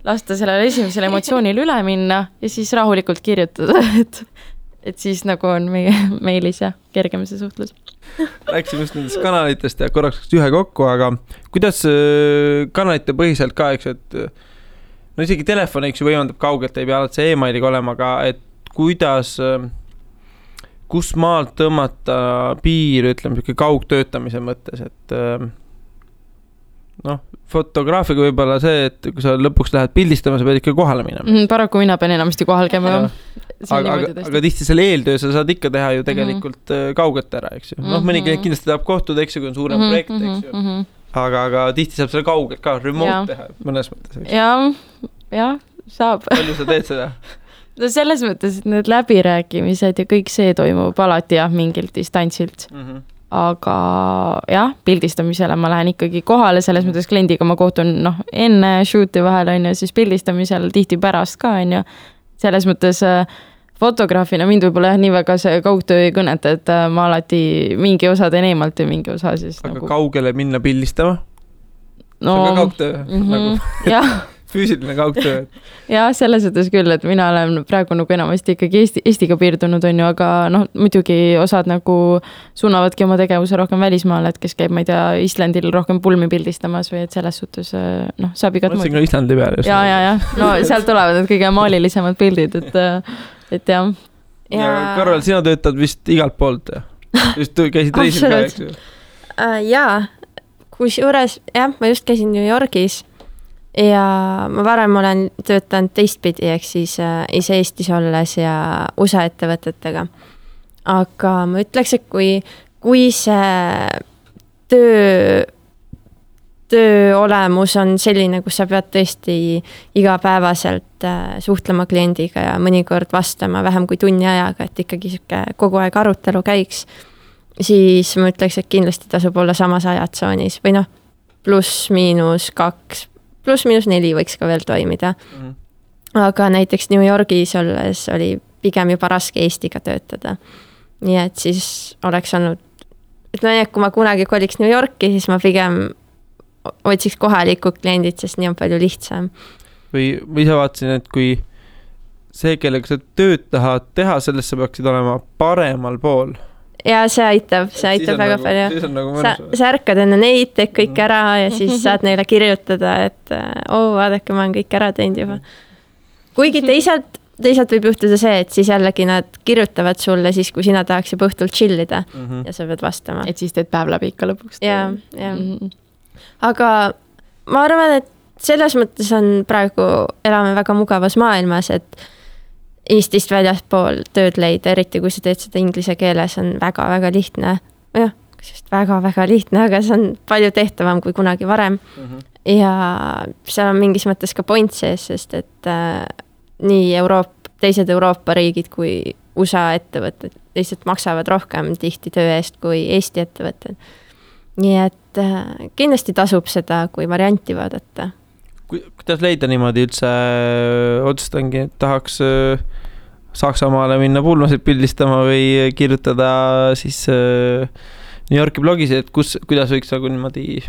lasta sellele esimesele emotsioonile üle minna ja siis rahulikult kirjutada, et siis nagu on meie meilis ja kergem see suhtlus. Rääksime just nendest kanalitest ja korraks ühe kokku, aga kuidas kanalite põhiselt ka, eks, et no isegi telefon, eks ju, võimaldab kaugelt, ei pea alati see e-mailiga olema, aga et kuidas, kus maalt tõmmata piir, ütleme, kaugtöötamise mõttes, et fotograafiga võib-olla see, et kui sa lõpuks lähed pildistama, sa pead ikka kohale minema. Paraku mina pean enamasti kohal käima. Aga tihti selle eeltöö sa saad ikka teha ju tegelikult kaugelt ära, eks ju. Mõni kindlasti tahab kohtuda, eks ju, kui on suurem projekt, eks ju. Aga tihti saab selle kaugelt ka remote teha mõnes mõttes. Ja, saab. Palju sa teed seda? No selles mõttes, et need läbirääkimised ja kõik see toimub alati mingilt distantsilt. Aga jah, pildistamisele ma lähen ikkagi kohale, selles mõttes kliendiga ma kohtun enne shooti vahel on ju, siis pildistamisel tihti pärast ka on ju. Selles mõttes fotograafina mind võib-olla nii väga see kaugtöö ei kõneta, et ma alati mingi osa teen eemalt ja mingi osa siis aga kaugele minna pildistama? No, see on ka kaugtöö? Jah. Füüsiline kaugtöö? Ja selles mõttes küll, et mina olen praegu nagu enamasti ikkagi Eestiga piirdunud on ju, aga muidugi osad nagu suunavadki oma tegevuse rohkem välismaale, et kes käib, ma ei tea, Islandil rohkem pulmi pildistamas või et selles suhtes saab igat mõtlesin ka Islandi peal. Ja. No sealt tulevad need kõige maalilisemad pildid, et jah. Ja Karol, sina töötad vist igalt poolt, just käisid reisil ka, eks ju? Jaa, kusjuures, ma just käisin New Yorgis ja ma varem olen töötanud teistpidi, ehk siis ise Eestis olles ja USA ettevõtetega. Aga ma ütleks, et kui see töö olemus on selline, kus sa pead tõesti igapäevaselt suhtlema kliendiga ja mõnikord vastama vähem kui tunni ajaga, et ikkagi kogu aeg arutelu käiks, siis ma ütleks, et kindlasti tasub olla samas ajatsoonis või +/-4 võiks ka veel toimida. Aga näiteks New Yorgis olles oli pigem juba raske Eestiga töötada. Nii et siis oleks olnud, kui ma kunagi koliks New Yorki, siis ma pigem otsiks kohalikud kliendid, sest nii on palju lihtsam. Või ise vaatasin, et kui see, kellega sa tööd tahad teha, sellest sa peaksid olema paremal pool. Ja see aitab väga palju. Sa ärkad enne neid, teed kõik ära ja siis saad neile kirjutada, et vaadake, ma olen kõik ära teinud juba. Kuigi teisalt võib juhtuda see, et siis jällegi nad kirjutavad sulle siis, kui sina tahaks juba õhtult chillida ja sa pead vastama. Et siis teed päev läbi ikka lõpuks. Ja. Aga ma arvan, et selles mõttes on praegu elame väga mugavas maailmas, et Eestist väljaspool tööd leida, eriti kui sa teed seda inglise keeles, on väga-väga lihtne. Jah, väga-väga lihtne, aga see on palju tehtavam kui kunagi varem. Ja seal on mingis mõttes ka point sees, sest et nii teised Euroopa riigid kui USA ettevõtted lihtsalt maksavad rohkem tihti töö eest kui Eesti ettevõtted. Nii et kindlasti tasub seda, kui varianti vaadata. Kuidas leida niimoodi üldse otsustangi, et tahaks Saksamaale minna pulmasid pildistama või kirjutada siis New Yorki blogis, et kuidas võiks nagu niimoodi?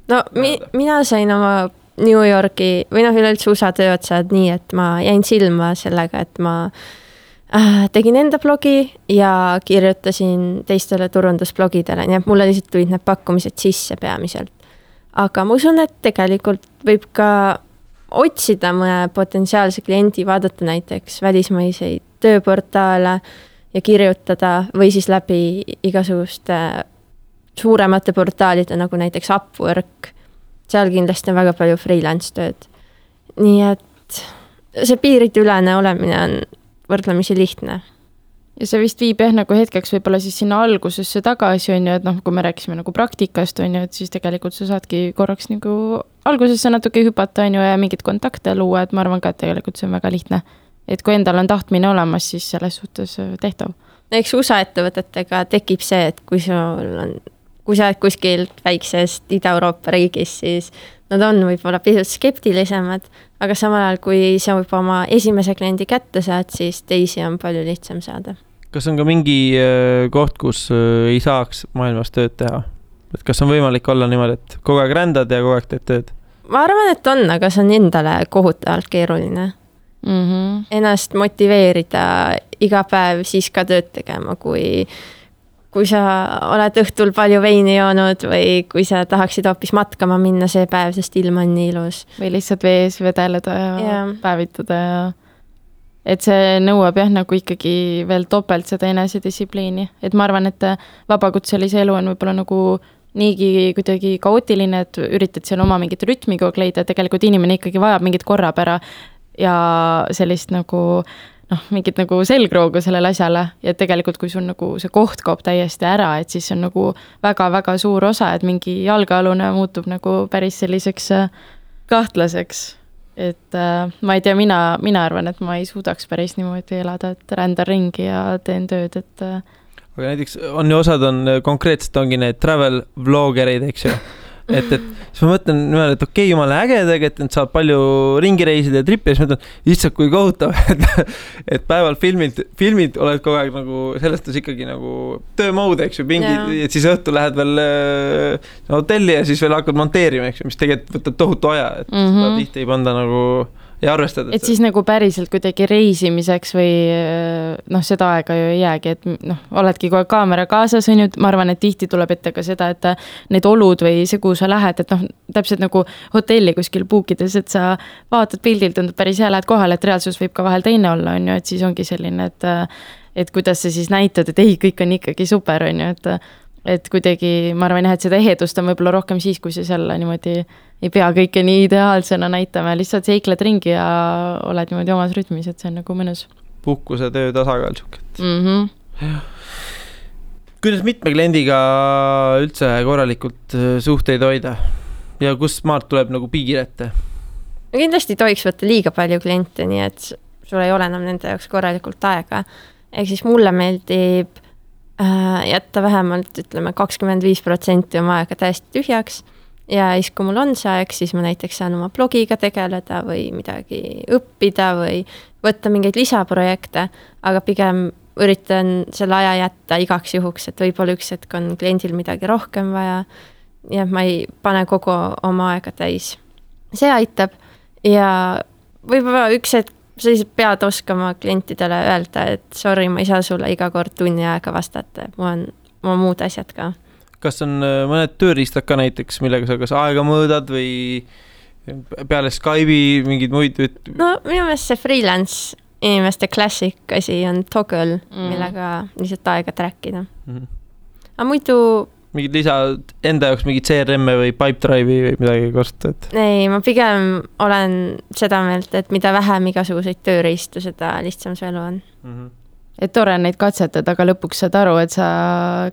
No mina sain oma New Yorki või üleüldse USA tööotsad nii, et ma jäin silma sellega, et ma tegin enda blogi ja kirjutasin teistele turundusblogidele, nii et mulle lihtsalt tulid need pakkumised sisse peamiselt. Aga ma usun, et tegelikult võib ka otsida mõne potentsiaalse kliendi, vaadata näiteks välismaiseid tööportaale ja kirjutada või siis läbi igasuguste suuremate portaalide, nagu näiteks Upwork. Seal kindlasti on väga palju freelance tööd. Nii et see piiridülene olemine on võrdlemisi lihtne. Ja see vist viib nagu hetkeks võib-olla siis sinna algusesse tagasi on ju, et kui me rääkisime nagu praktikast on ju, et siis tegelikult sa saadki korraks nagu algusesse natuke hüpata on ju ja mingid kontakte luua, et ma arvan ka, et tegelikult see on väga lihtne. Et kui endal on tahtmine olemas, siis selles suhtes tehtav. Eks USA ettevõtetega tekib see, et kui sa oled kuskil väiksest Ida-Euroopa riigis, siis nad on võib-olla pisut skeptilisemad, aga samal ajal, kui sa juba oma esimese kliendi kätte saad, siis teisi on palju lihtsam saada. Kas on ka mingi koht, kus ei saaks maailmas tööd teha? Et kas on võimalik olla niimoodi, et kogu aeg rändad ja kogu aeg teed tööd? Ma arvan, et on, aga see on endale kohutavalt keeruline. Ennast motiveerida iga päev siis ka tööd tegema, kui sa oled õhtul palju veini joonud või kui sa tahaksid hoopis matkama minna see päev, sest ilm on nii ilus. Või lihtsalt vees vedeleda ja päevitada ja et see nõuab nagu ikkagi veel topelt seda enesedistsipliini. Et ma arvan, et vabakutselise elu on võib-olla nagu niigi kuidagi kaootiline, et üritad seal oma mingit rütmi kogu leida, tegelikult inimene ikkagi vajab mingit korrapära ja sellist nagu mingit nagu selgroogu sellele asjale ja tegelikult kui sul nagu see koht kaob täiesti ära, et siis on nagu väga-väga suur osa, et mingi jalgealune muutub nagu päris selliseks kahtlaseks. Et ma ei tea, mina arvan, et ma ei suudaks päris niimoodi elada, et rändan ringi ja teen tööd, et aga näiteks on ju osad on konkreetselt ongi need travel vlogerid, eks ju. Et siis ma mõtlen niimoodi, et okei, jumala äge tegelikult, et saab palju ringi reisida ja trippi ja siis mõtlen, lihtsalt kui kohutav, et päeval filmid oled kogu aeg nagu sellest ikkagi nagu töömode, eks ju, et siis õhtu lähed veel hotelli ja siis veel hakkad monteerima, eks ju, mis tegelikult võtab tohutu aja, et seda tihti ei panda nagu ja arvestada. Et siis nagu päriselt kuidagi reisimiseks või seda aega ju ei jäägi, et oledki kogu kaamera kaasas, on ju, ma arvan, et tihti tuleb ette ka seda, et need olud või see, kuhu sa lähed, et täpselt nagu hotelli kuskil puukides, et sa vaatad pildilt, tundub päris hea, lähed kohale, et reaalsus võib ka vahel teine olla, on ju, et siis ongi selline, et kuidas sa siis näitad, et ei, kõik on ikkagi super, on ju, et kuidagi, ma arvan, et seda ehedust on võib-olla rohkem siis, kui sa seal niimoodi ei pea kõike nii ideaalsena näitama, lihtsalt seikled ringi ja oled niimoodi omas rütmis, et see on nagu mõnus. Puhkuse töö tasakaal siuket. Kuidas mitme kliendiga üldse korralikult suhteid hoida ja kus maalt tuleb nagu piir ette? Kindlasti tohiks võtta liiga palju kliente, nii et sul ei ole enam nende jaoks korralikult aega. Ehk siis mulle meeldib jätta vähemalt, ütleme, 25% oma aega täiesti tühjaks ja siis, kui mul on see aeg, siis ma näiteks saan oma blogiga tegeleda või midagi õppida või võtta mingeid lisaprojekte, aga pigem üritan selle aja jätta igaks juhuks, et võib-olla üks hetk on kliendil midagi rohkem vaja ja ma ei pane kogu oma aega täis. See aitab ja võib-olla üks hetk sa lihtsalt pead oskama klientidele öelda, et sorry, ma ei saa sulle iga kord tunni aega vastata, mul on muud asjad ka. Kas on mõned tööriistad ka näiteks, millega sa kas aega mõõdad või peale Skype'i mingid muid? No minu meelest see freelance inimeste klassik asi on Toggle, millega lihtsalt aega trackida. Aga muidu mingid lisa enda jaoks mingid CRM-e või Pipedrive'i või midagi kostad? Ei, ma pigem olen seda meelt, et mida vähem igasuguseid tööriistu, seda lihtsam see elu on. Et tore neid katsetada, aga lõpuks saad aru, et sa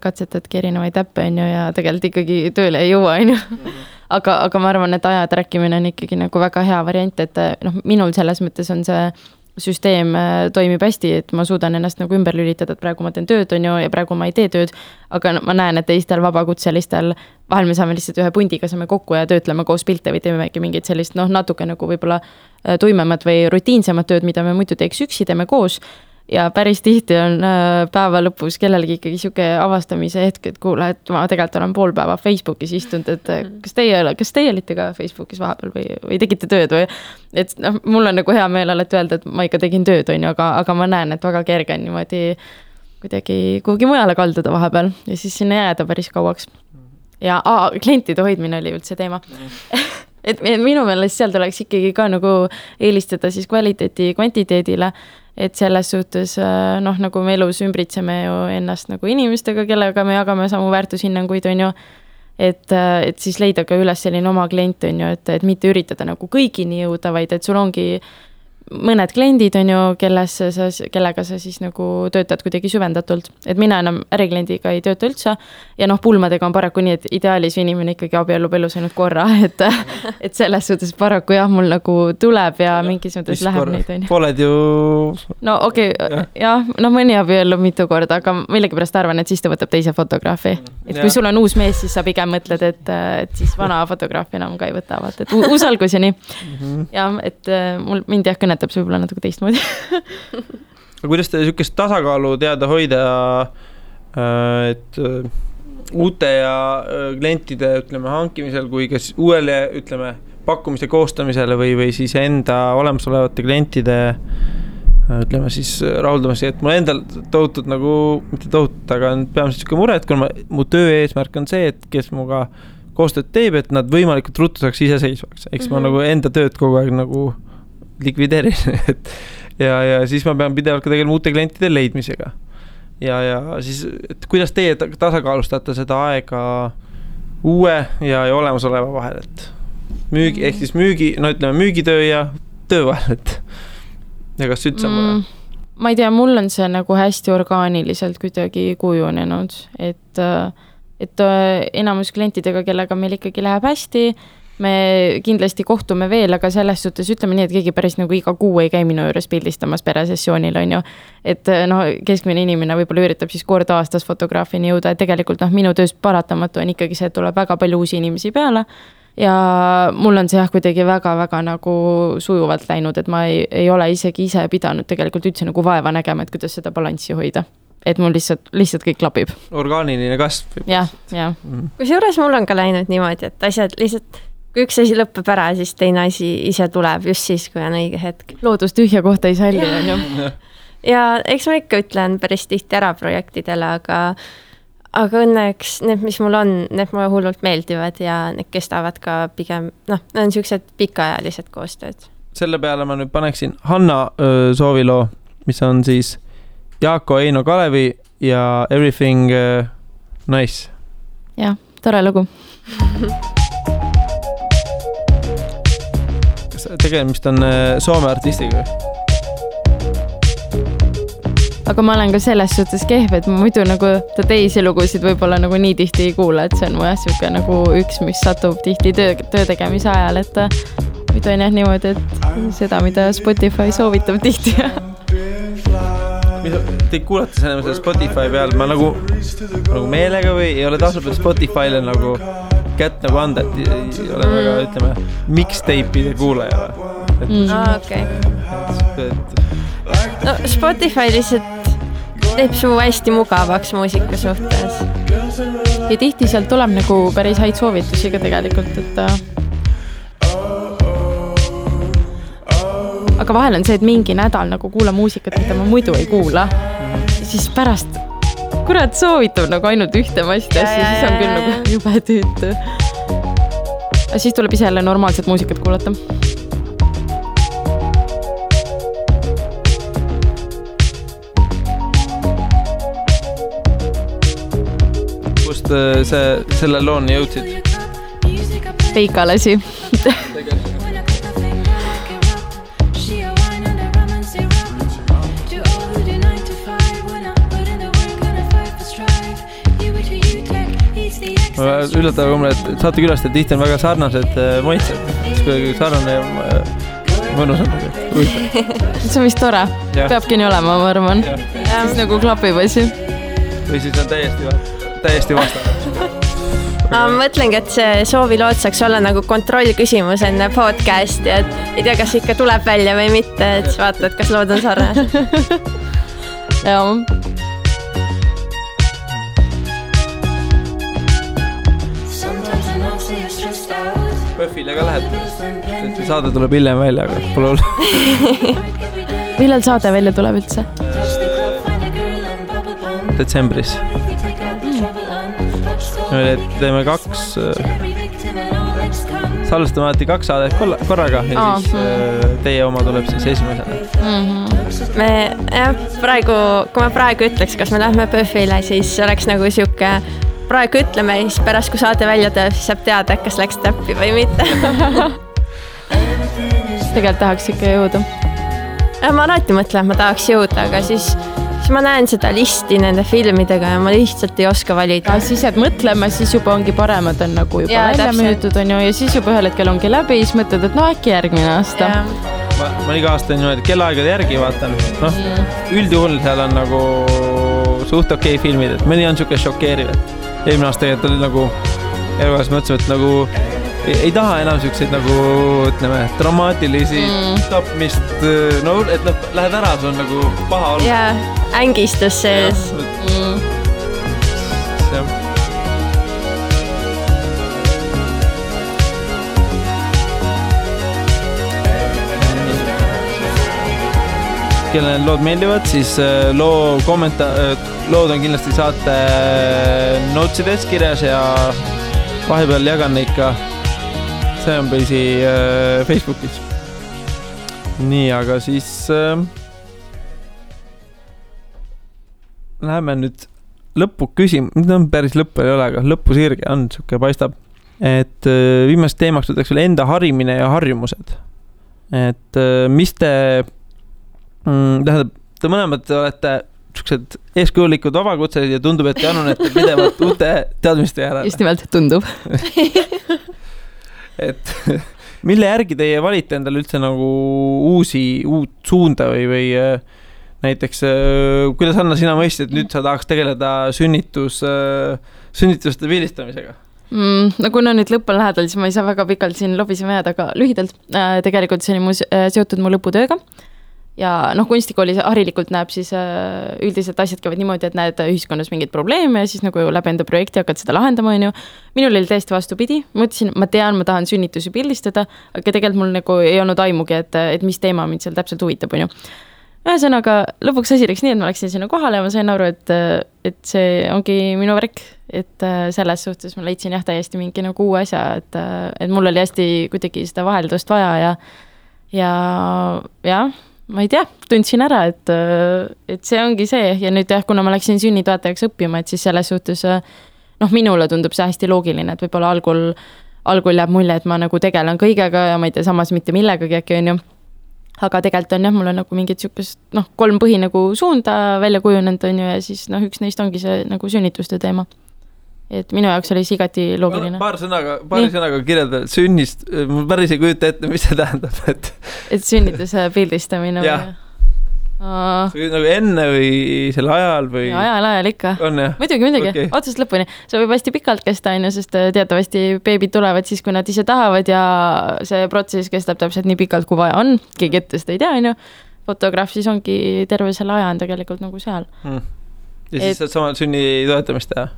katsetadki erinevaid äppe, on ju, ja tegelikult ikkagi tööle ei jõua, on ju. Aga ma arvan, et aja trackimine on ikkagi nagu väga hea variant, et minul selles mõttes on see süsteem toimib hästi, et ma suudan ennast nagu ümber lülitada, et praegu ma teen tööd, on ju, ja praegu ma ei tee tööd, aga ma näen, et teistel vabakutselistel vahel me saame lihtsalt ühe pundiga saame kokku ja töötleme koos pilte või teemegi mingit sellist, natuke nagu võib-olla tuimemat või rutiinsemat tööd, mida me muidu teeks üksi, teeme koos. Ja päris tihti on päeva lõpus kellelgi ikkagi siuke avastamise hetk, et kuule, et ma tegelikult olen pool päeva Facebookis istunud, et kas teie olite ka Facebookis vahepeal või tegite tööd või, et mul on nagu hea meel alati öelda, et ma ikka tegin tööd, on ju, aga ma näen, et väga kerge on niimoodi kuidagi kuhugi mujale kalduda vahepeal ja siis sinna jääda päris kauaks. Ja klientide hoidmine oli üldse teema. Et minu meelest seal tuleks ikkagi ka nagu eelistada siis kvaliteeti kvantiteedile, et selles suhtes, nagu me elus ümbritseme ju ennast nagu inimestega, kellega me jagame samu väärtushinnanguid, on ju, et siis leida ka üles selline oma klient, on ju, et mitte üritada nagu kõigini jõuda, vaid et sul ongi mõned kliendid on ju, kellega sa siis nagu töötad kuidagi süvendatult. Et mina enam ärikliendiga ei tööta üldse ja pulmadega on paraku nii, et ideaalis inimene ikkagi abiellub elus ainult korra, et selles suhtes paraku jah, mul nagu tuleb ja mingis mõttes läheb neid on ju. Pooled ju... No okei, jah, mõni abiellub mitu korda, aga millegipärast arvan, et siis ta võtab teise fotograafi. Et kui sul on uus mees, siis sa pigem mõtled, et siis vana fotograafi enam ka ei võta, et uus algus ja nii. Ja, et mind jah kõnetab see võib-olla natuke teistmoodi. Kuidas te niisugust tasakaalu teada hoida, et uute ja klientide hankimisel kui kas uuele pakkumise koostamisele või siis enda olemasolevate klientide siis rahuldamasi, et mul endal tohutud mitte tohutud, aga peamiselt niisugune mure, et kui mu töö eesmärk on see, et kes muga koostööd teeb, et nad võimalikult ruttu saaks iseseisvaks. Eks ma enda tööd kogu aeg likvideerin. ja siis ma pean pidevalt ka tegelema uute klientide leidmisega. Ja siis, et kuidas teie tasakaalustate seda aega uue ja olemasoleva vahel, et ehk siis müügitöö ja töö vahel, et ja kas üldse on vaja? Ma ei tea, mul on see nagu hästi orgaaniliselt kuidagi kujunenud, et enamus klientidega, kellega meil ikkagi läheb hästi, me kindlasti kohtume veel, aga selles suhtes ütleme nii, et keegi päris nagu iga kuu ei käi minu juures pildistamas peresessioonil on ju. Et keskmine inimene võib-olla üritab siis kord aastas fotograafini jõuda, et tegelikult minu töös paratamatu on ikkagi see, et tuleb väga palju uusi inimesi peale ja mul on see jah kuidagi väga-väga nagu sujuvalt läinud, et ma ei ole isegi ise pidanud tegelikult üldse nagu vaeva nägema, et kuidas seda balanssi hoida. Et mul lihtsalt kõik klapib. Orgaaniline kasv. Jah. Kusjuures mul on ka läinud niimoodi, et asjad lihtsalt, kui üks asi lõppeb ära, siis teine asi ise tuleb just siis, kui on õige hetk. Loodus tühja kohta ei salli, on ju. Ja eks ma ikka ütlen päris tihti ära projektidele, aga õnneks need, mis mul on, need mulle hullult meeldivad ja need kestavad ka pigem, need on sellised pikaajalised koostööd. Selle peale ma nüüd paneksin Hanna sooviloo, mis on siis Jaako Eino Kalevi ja Everything Nice. Jah, tore lugu. Kas tegemist on Soome artistiga? Aga ma olen ka selles suhtes kehv, et ma muidu nagu ta teisi lugusid võib-olla nagu nii tihti ei kuula, et see on mu siuke nagu üks, mis satub tihti töö tegemise ajal, et muidu on jah niimoodi, et seda, mida Spotify soovitab tihti. Te kuulate selle Spotify peal, ma nagu meelega või ei ole tasub Spotify'le nagu kätt nagu anda, et ei ole väga, ütleme, mixtape'ide kuulaja. Okei. No Spotify lihtsalt teeb su hästi mugavaks muusika suhtes. Ja tihti sealt tuleb nagu päris häid soovitusi ka tegelikult, et aga vahel on see, et mingi nädal nagu kuula muusikat, mida ma muidu ei kuula. Ja siis pärast, kurat soovitab nagu ainult ühte masti asja, siis on küll nagu jube tüütu. Ja siis tuleb ise jälle normaalset muusikat kuulata. Kust selle looni jõudsid? Peikalasi. Üllatav mulle, et saate külastada tihti on väga sarnased maitsed. Kuidagi sarnane ja mõnus on. See on vist tore. Peabki nii olema, ma arvan. Siis nagu klapib asi. Või siis on täiesti vastane. Ma mõtlengi, et see soovilood saaks olla nagu kontroll küsimus enne podcasti, et ei tea, kas ikka tuleb välja või mitte, et siis vaatad, kas lood on sarnased. Jaa. Pöfile ka lähed, saade tuleb hiljem välja, aga pole olnud. Millal saade välja tuleb üldse? Detsembris. Me teeme 2, salvestame alati 2 saadet korraga ja siis teie oma tuleb siis esimesena. Kui ma praegu ütleks, kas me lähme Pöfile, siis oleks nagu siuke praegu ütleme, siis pärast kui saade välja teeb, siis saab teada, kas läks täppi või mitte. Tegelikult tahaks ikka jõuda. ma alati mõtlen, et ma tahaks jõuda, aga siis ma näen seda listi nende filmidega ja ma lihtsalt ei oska valida. Siis jääd mõtlema, siis juba ongi paremad on nagu juba välja müüdud on ju ja siis juba ühel hetkel ongi läbi, siis mõtled, et äkki järgmine aasta. Ma iga aasta niimoodi kellaaegade järgi vaatan. Üldjuhul seal on nagu suht okei filmid, et mõni on siuke šokeeriv, et eelmine aasta tegelikult oli nagu elukas mõtlesime, et nagu ei taha enam siukseid nagu, ütleme, dramaatilisi tapmist, no, et lähed ära, see on nagu paha olnud. Jaa, ängistus sees. Kellele lood meeldivad, siis lood on kindlasti saate notsides kirjas ja vahepeal jagan neid ka. See on põisi Facebookis. Nii, aga siis läheme nüüd lõppu küsima. Nüüd on päris lõppu ei ole, aga lõppu sirge on, siuke paistab. Et viimast teemaks võtaks veel enda harimine ja harjumused. Et mis te tähendab, te mõlemad olete siuksed eeskujulikud vabakutselised ja tundub, et te annunete pidevalt uute teadmiste järele. Just nimelt tundub. Et mille järgi teie valite endale üldse nagu uut suunda või näiteks, kuidas Anna sina mõistsid, et nüüd sa tahaks tegeleda sünnituste pildistamisega? No kuna nüüd lõpp on lähedal, siis ma ei saa väga pikalt siin lobisema jääda, aga lühidalt tegelikult see oli seotud mu lõputööga. Ja kunstikoolis harilikult näeb siis üldiselt asjad käivad niimoodi, et näed ühiskonnas mingid probleeme ja siis nagu läbi enda projekti hakkad seda lahendama, on ju. Minul oli täiesti vastupidi. Mõtlesin, ma tean, ma tahan sünnitusi pildistada, aga tegelikult mul nagu ei olnud aimugi, et mis teema mind seal täpselt huvitab, on ju. Ühesõnaga, lõpuks asi läks nii, et ma läksin sinna kohale ja ma sain aru, et see ongi minu värk, et selles suhtes ma leidsin täiesti mingi nagu uue asja, et mul oli hästi kuidagi seda vaheldust vaja ja ma ei tea, tundsin ära, et see ongi see ja nüüd kuna ma läksin sünnitoetajaks õppima, et siis selles suhtes minule tundub see hästi loogiline, et võib-olla algul jääb mulje, et ma nagu tegelen kõigega ja ma ei tea samas mitte millegagi äkki on ju, aga tegelikult on mul on nagu mingid siukest 3 põhi nagu suunda välja kujunenud on ju ja siis üks neist ongi see nagu sünnituste teema. Et minu jaoks oli see igati loogiline. Paari sõnaga kirjelda sünnist, ma päris ei kujuta ette, mis see tähendab. Et sünnituse pildistamine või? Nagu enne või selle ajal või? Ajal ikka. On jah? Muidugi, okay. Otsast lõpuni. See võib hästi pikalt kesta, sest teatavasti beebid tulevad siis, kui nad ise tahavad ja see protsess kestab täpselt nii pikalt, kui vaja on. Keegi ette seda ei tea, on ju. Fotograaf siis ongi terve selle aja on tegelikult nagu seal. Ja siis saad samal sünni toetamist teha?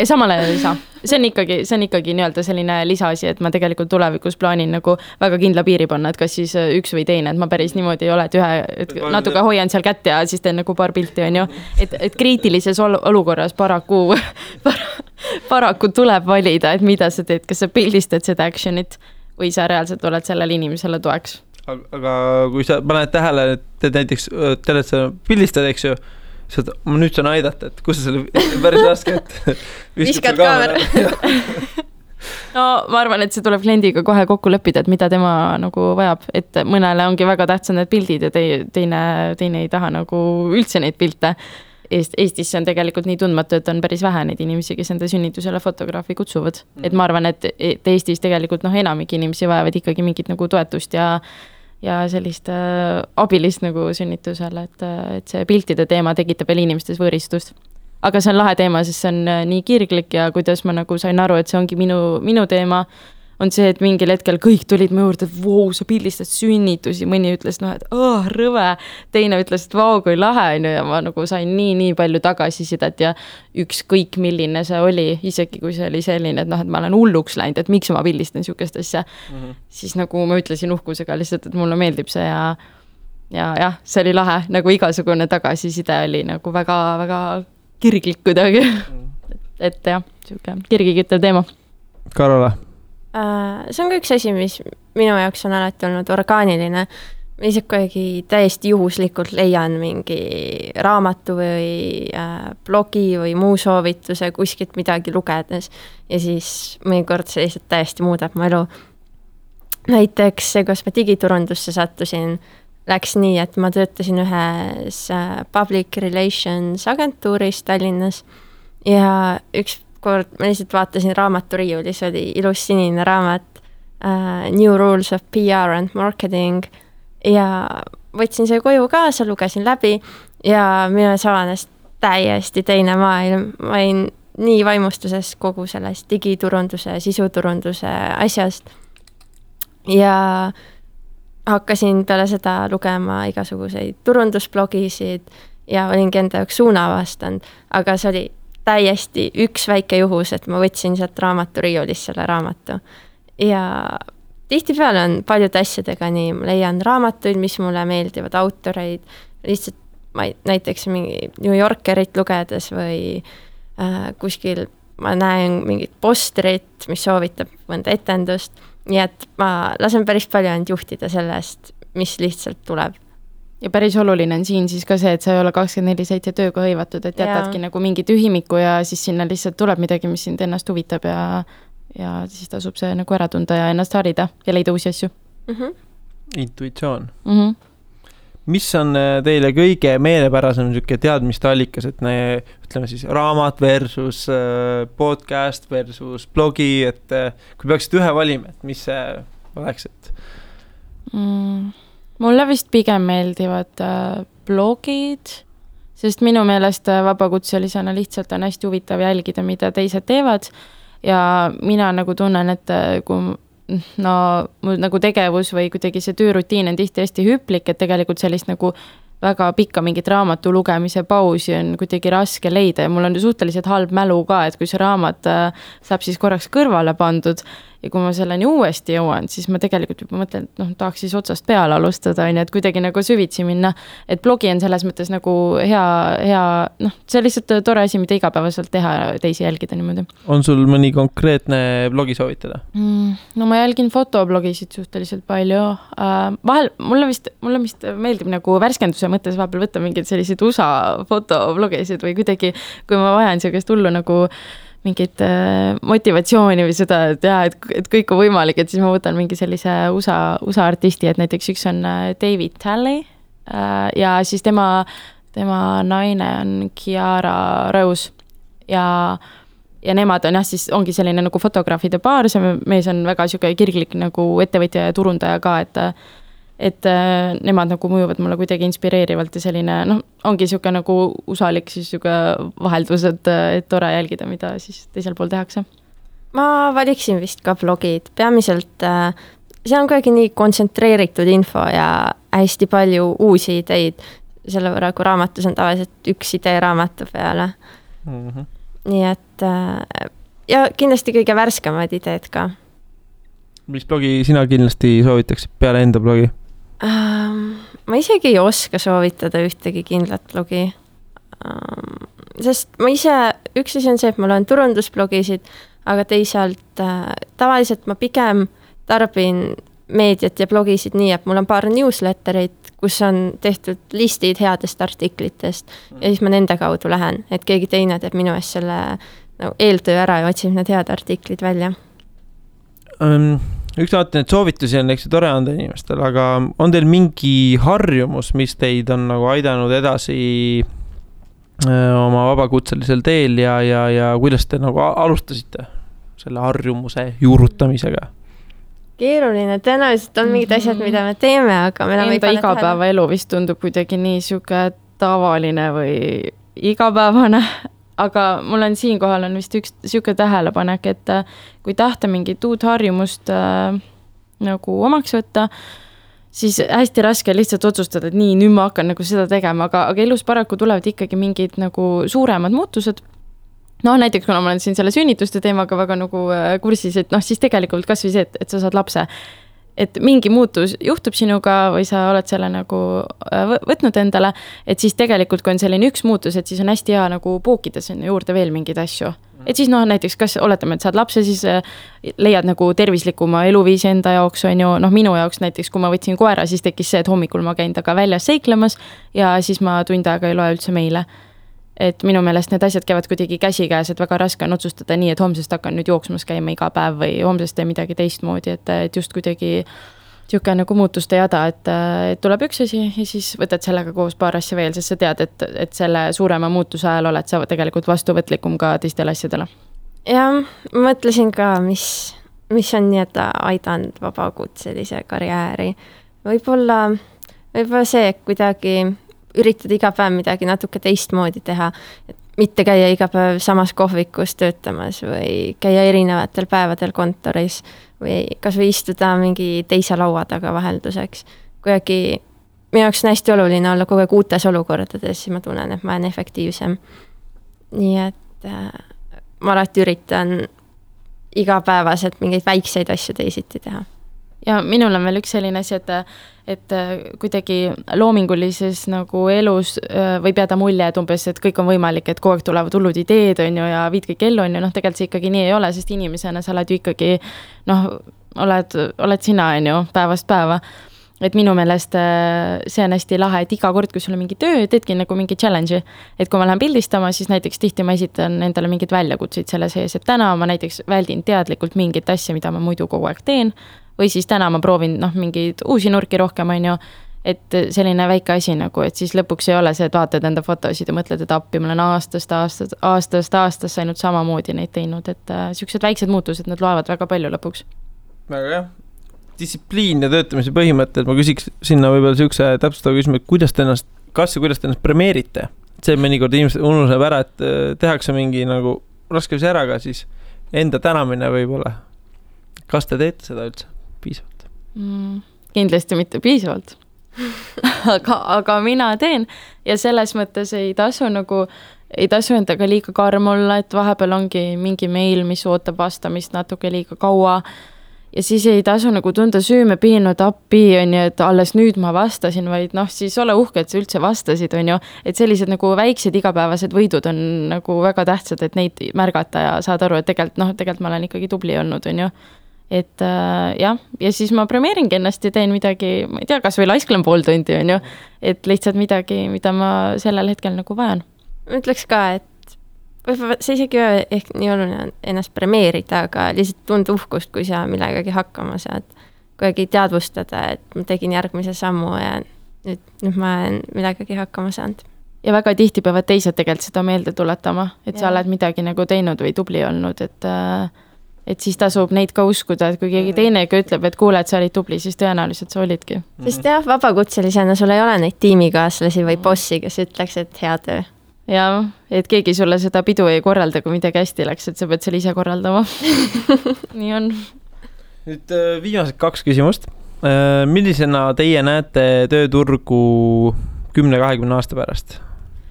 Samale ei saa. See on ikkagi nii-öelda selline lisaasi, et ma tegelikult tulevikus plaanin nagu väga kindla piiri panna, et kas siis üks või teine, et ma päris niimoodi ei ole, et natuke hoian seal kätt ja siis teen nagu paar pilti, on ju. Et kriitilises olukorras paraku tuleb valida, et mida sa teed, kas sa pildistad seda actionit või sa reaalselt oled sellele inimesele toeks. Aga kui sa paned tähele, et näiteks pildistad, eks ju, ma nüüd saan aidata, et kus sa selle päris raske, et viskad kaamera. No ma arvan, et see tuleb kliendiga kohe kokku leppida, et mida tema nagu vajab, et mõnele ongi väga tähtsad need pildid ja teine ei taha nagu üldse neid pilte. Eestis on tegelikult nii tundmatu, et on päris vähe neid inimesi, kes enda sünnitusele fotograafi kutsuvad. Et ma arvan, et Eestis tegelikult enamik inimesi vajavad ikkagi mingit nagu toetust ja sellist abilist nagu sünnitusele, et see piltide teema tekitab veel inimestes võõristust. Aga see on lahe teema, sest see on nii kirglik ja kuidas ma nagu sain aru, et see ongi minu teema, on see, et mingil hetkel kõik tulid mu juurde, et vau, sa pildistad sünnitusi, mõni ütles, et rõve, teine ütles, et vau, kui lahe on ja ma nagu sain nii palju tagasisidet ja ükskõik milline see oli, isegi kui see oli selline, et ma olen hulluks läinud, et miks ma pildistan siukest asja, siis nagu ma ütlesin uhkusega lihtsalt, et mulle meeldib see ja see oli lahe, nagu igasugune tagasiside oli nagu väga kirglik kuidagi, et jah, siuke kirgiküttev teema. Karola? See on ka üks asi, mis minu jaoks on alati olnud orgaaniline. Ma ise kuidagi täiesti juhuslikult leian mingi raamatu või blogi või muu soovituse kuskilt midagi lugedes ja siis mõnikord see lihtsalt täiesti muudab mu elu. Näiteks see, kus ma digiturundusse sattusin, läks nii, et ma töötasin ühes public relations agentuuris Tallinnas ja üks kord ma lihtsalt vaatasin raamaturiiulis, oli ilus sinine raamat New Rules of PR and Marketing ja võtsin see koju kaasa, lugesin läbi ja minu avanes täiesti teine maailm. Ma olin nii vaimustuses kogu sellest digiturunduse, sisuturunduse asjast ja hakkasin peale seda lugema igasuguseid turundusblogisid ja olingi enda jaoks suuna avastanud, aga see oli täiesti üks väike juhus, et ma võtsin sealt raamaturiiulist selle raamatu. Ja tihtipeale on paljude asjadega nii, ma leian raamatuid, mis mulle meeldivad, autoreid, lihtsalt näiteks mingi New Yorkerit lugedes või kuskil ma näen mingit postrit, mis soovitab mõnda etendust, nii et ma lasen päris palju ainult juhtida sellest, mis lihtsalt tuleb. Ja päris oluline on siin siis ka see, et sa ei ole 24/7 tööga hõivatud, et jätadki nagu mingi tühimiku ja siis sinna lihtsalt tuleb midagi, mis sind ennast huvitab ja siis tasub see nagu ära tunda ja ennast harida ja leida uusi asju. Intuitsioon. Mis on teile kõige meelepärasem teadmiste allikas, et ütleme siis raamat versus podcast versus blogi, et kui peaksid ühe valima, et mis see oleks, et Mulle vist pigem meeldivad blogid, sest minu meelest vabakutselisena lihtsalt on hästi huvitav jälgida, mida teised teevad ja mina nagu tunnen, et kui mul nagu tegevus või kuidagi see töörutiin on tihti hästi hüplik, et tegelikult sellist nagu väga pikka mingit raamatu lugemise pausi on kuidagi raske leida ja mul on suhteliselt halb mälu ka, et kui see raamat saab siis korraks kõrvale pandud ja kui ma selleni uuesti jõuan, siis ma tegelikult juba mõtlen, et tahaks siis otsast peale alustada, et kuidagi nagu süvitsi minna, et blogi on selles mõttes nagu hea, see on lihtsalt tore asi, mida igapäevaselt teha ja teisi jälgida niimoodi. On sul mõni konkreetne blogi soovitada? No ma jälgin fotoblogisid suhteliselt palju. Vahel mulle vist meeldib nagu värskenduse mõttes vahepeal võtta mingeid selliseid USA fotoblogisid või kuidagi, kui ma vajan sellist hullu nagu mingit motivatsiooni või seda, et kõik on võimalik, et siis ma võtan mingi sellise USA artisti, et näiteks üks on David Talley ja siis tema naine on Kiara Rose ja nemad on siis ongi selline nagu fotograafide paar, see mees on väga kirglik nagu ettevõtja ja turundaja ka, et nemad nagu mõjuvad mulle kuidagi inspireerivalt ja selline, ongi siuke nagu usalik siis siuke vaheldus, et tore jälgida, mida siis teisel pool tehakse. Ma valiksin vist ka blogid, peamiselt see on kuidagi nii kontsentreeritud info ja hästi palju uusi ideid, selle võrra, kui raamatus on tavaliselt üks idee raamatu peale. Nii et ja kindlasti kõige värskemad ideed ka. Mis blogi sina kindlasti soovitaksid peale enda blogi? Ma isegi ei oska soovitada ühtegi kindlat blogi, sest ma ise, üks asi on see, et ma loen turundusblogisid, aga teisalt tavaliselt ma pigem tarbin meediat ja blogisid nii, et mul on paar newsletterit, kus on tehtud listid headest artiklitest ja siis ma nende kaudu lähen, et keegi teine teeb minu eest selle eeltöö ära ja otsib need head artiklid välja. Üks vaatan, et soovitusi on tore anda inimestel, aga on teil mingi harjumus, mis teid on nagu aidanud edasi oma vabakutselisel teel ja kuidas te nagu alustasite selle harjumuse juurutamisega? Keeruline, tõenäoliselt on mingid asjad, mida me teeme, aga me enam ei pane igapäeva elu vist tundub kuidagi nii siuke tavaline või igapäevane. Aga mul on siinkohal on vist üks siuke tähelepanek, et kui tahta mingit uut harjumust nagu omaks võtta, siis hästi raske lihtsalt otsustada, et nii, nüüd ma hakkan nagu seda tegema, aga elus paraku tulevad ikkagi mingid nagu suuremad muutused. Näiteks kuna ma olen siin selle sünnituste teemaga väga nagu kursis, et siis tegelikult kas või see, et sa saad lapse. Et mingi muutus juhtub sinuga või sa oled selle nagu võtnud endale, et siis tegelikult, kui on selline üks muutus, et siis on hästi hea nagu pookida sinna juurde veel mingeid asju. Et siis näiteks, kas oletame, et saad lapse, siis leiad nagu tervislikuma eluviisi enda jaoks, on ju, minu jaoks näiteks, kui ma võtsin koera, siis tekkis see, et hommikul ma käin taga väljas seiklemas ja siis ma tund aega ei loe üldse meile. Et minu meelest need asjad käivad kuidagi käsikäes, et väga raske on otsustada nii, et homsest hakkan nüüd jooksmas käima iga päev või homsest teen midagi teistmoodi, et just kuidagi niisugune nagu muutuste jada, et tuleb üks asi ja siis võtad sellega koos paar asja veel, sest sa tead, et selle suurema muutuse ajal oled sa tegelikult vastuvõtlikum ka teistele asjadele. Ja mõtlesin ka, mis on nii-öelda aidanud vabakutselise karjääri. Võib-olla see, et kuidagi üritada iga päev midagi natuke teistmoodi teha, et mitte käia iga päev samas kohvikus töötamas või käia erinevatel päevadel kontoris või kas või istuda mingi teise laua taga vahelduseks. Kuidagi minu jaoks on hästi oluline olla kogu aeg uutes olukordades, siis ma tunnen, et ma olen efektiivsem. Nii et ma alati üritan igapäevaselt mingeid väikseid asju teisiti teha. Ja minul on veel üks selline asi, et kuidagi loomingulises nagu elus võib jääda mulje, et umbes, et kõik on võimalik, et kogu aeg tulevad hullud ideed on ju, ja viid kõik ellu on ju, tegelikult see ikkagi nii ei ole, sest inimesena sa oled ju ikkagi, oled sina on ju päevast päeva. Et minu meelest see on hästi lahe, et iga kord, kui sul on mingi töö, teedki nagu mingi challenge'i. Et kui ma lähen pildistama, siis näiteks tihti ma esitan endale mingid väljakutseid selle sees, et täna ma näiteks väldin teadlikult mingit asja, mida ma muidu kogu aeg teen, või siis täna ma proovin mingeid uusi nurki rohkem, on ju, et selline väike asi nagu, et siis lõpuks ei ole see, et vaatad enda fotosid ja mõtled, et appi, ma olen aastast ainult samamoodi neid teinud, et sellised väiksed muutused, need loevad väga palju lõpuks. Väga jah. Distsipliin ja töötamise põhimõtted, ma küsiks sinna võib-olla siukse täpsustava küsimus, et kuidas te ennast premeerite? See mõnikord inimesed unustab ära, et tehakse mingi nagu raskemise ära ka siis enda tänamine võib-olla. Kas te teete seda üldse piisavalt? Kindlasti mitte piisavalt. aga mina teen ja selles mõttes ei tasu endaga liiga karm olla, et vahepeal ongi mingi meil, mis ootab vastamist natuke liiga kaua. Ja siis ei tasu nagu tunda süüme piinud appi, on ju, et alles nüüd ma vastasin, vaid siis ole uhke, et sa üldse vastasid, on ju. Et sellised nagu väiksed igapäevased võidud on nagu väga tähtsad, et neid märgata ja saad aru, et tegelikult ma olen ikkagi tubli olnud, on ju. Et jah, ja siis ma premeeringi ennast ja teen midagi, ma ei tea, kas või laisklen pool tundi, on ju. Et lihtsalt midagi, mida ma sellel hetkel nagu vajan. Ma ütleks ka, et võib-olla see isegi ehk nii oluline on ennast premeerida, aga lihtsalt tunda uhkust, kui sa millegagi hakkama saad. Kuidagi teadvustada, et ma tegin järgmise sammu ja nüüd ma olen millegagi hakkama saanud. Ja väga tihti peavad teised tegelikult seda meelde tuletama, et sa oled midagi nagu teinud või tubli olnud, et siis tasub neid ka uskuda, et kui keegi teinegi ütleb, et kuule, et sa olid tubli, siis tõenäoliselt sa olidki. Sest jah, vabakutselisena sul ei ole neid tiimikaaslasi või bossi, kes ütleks, et hea töö. Ja, et keegi sulle seda pidu ei korralda, kui midagi hästi läks, et sa pead selle ise korraldama. Nii on. Nüüd viimased 2 küsimust. Millisena teie näete tööturgu 10-20 aasta pärast?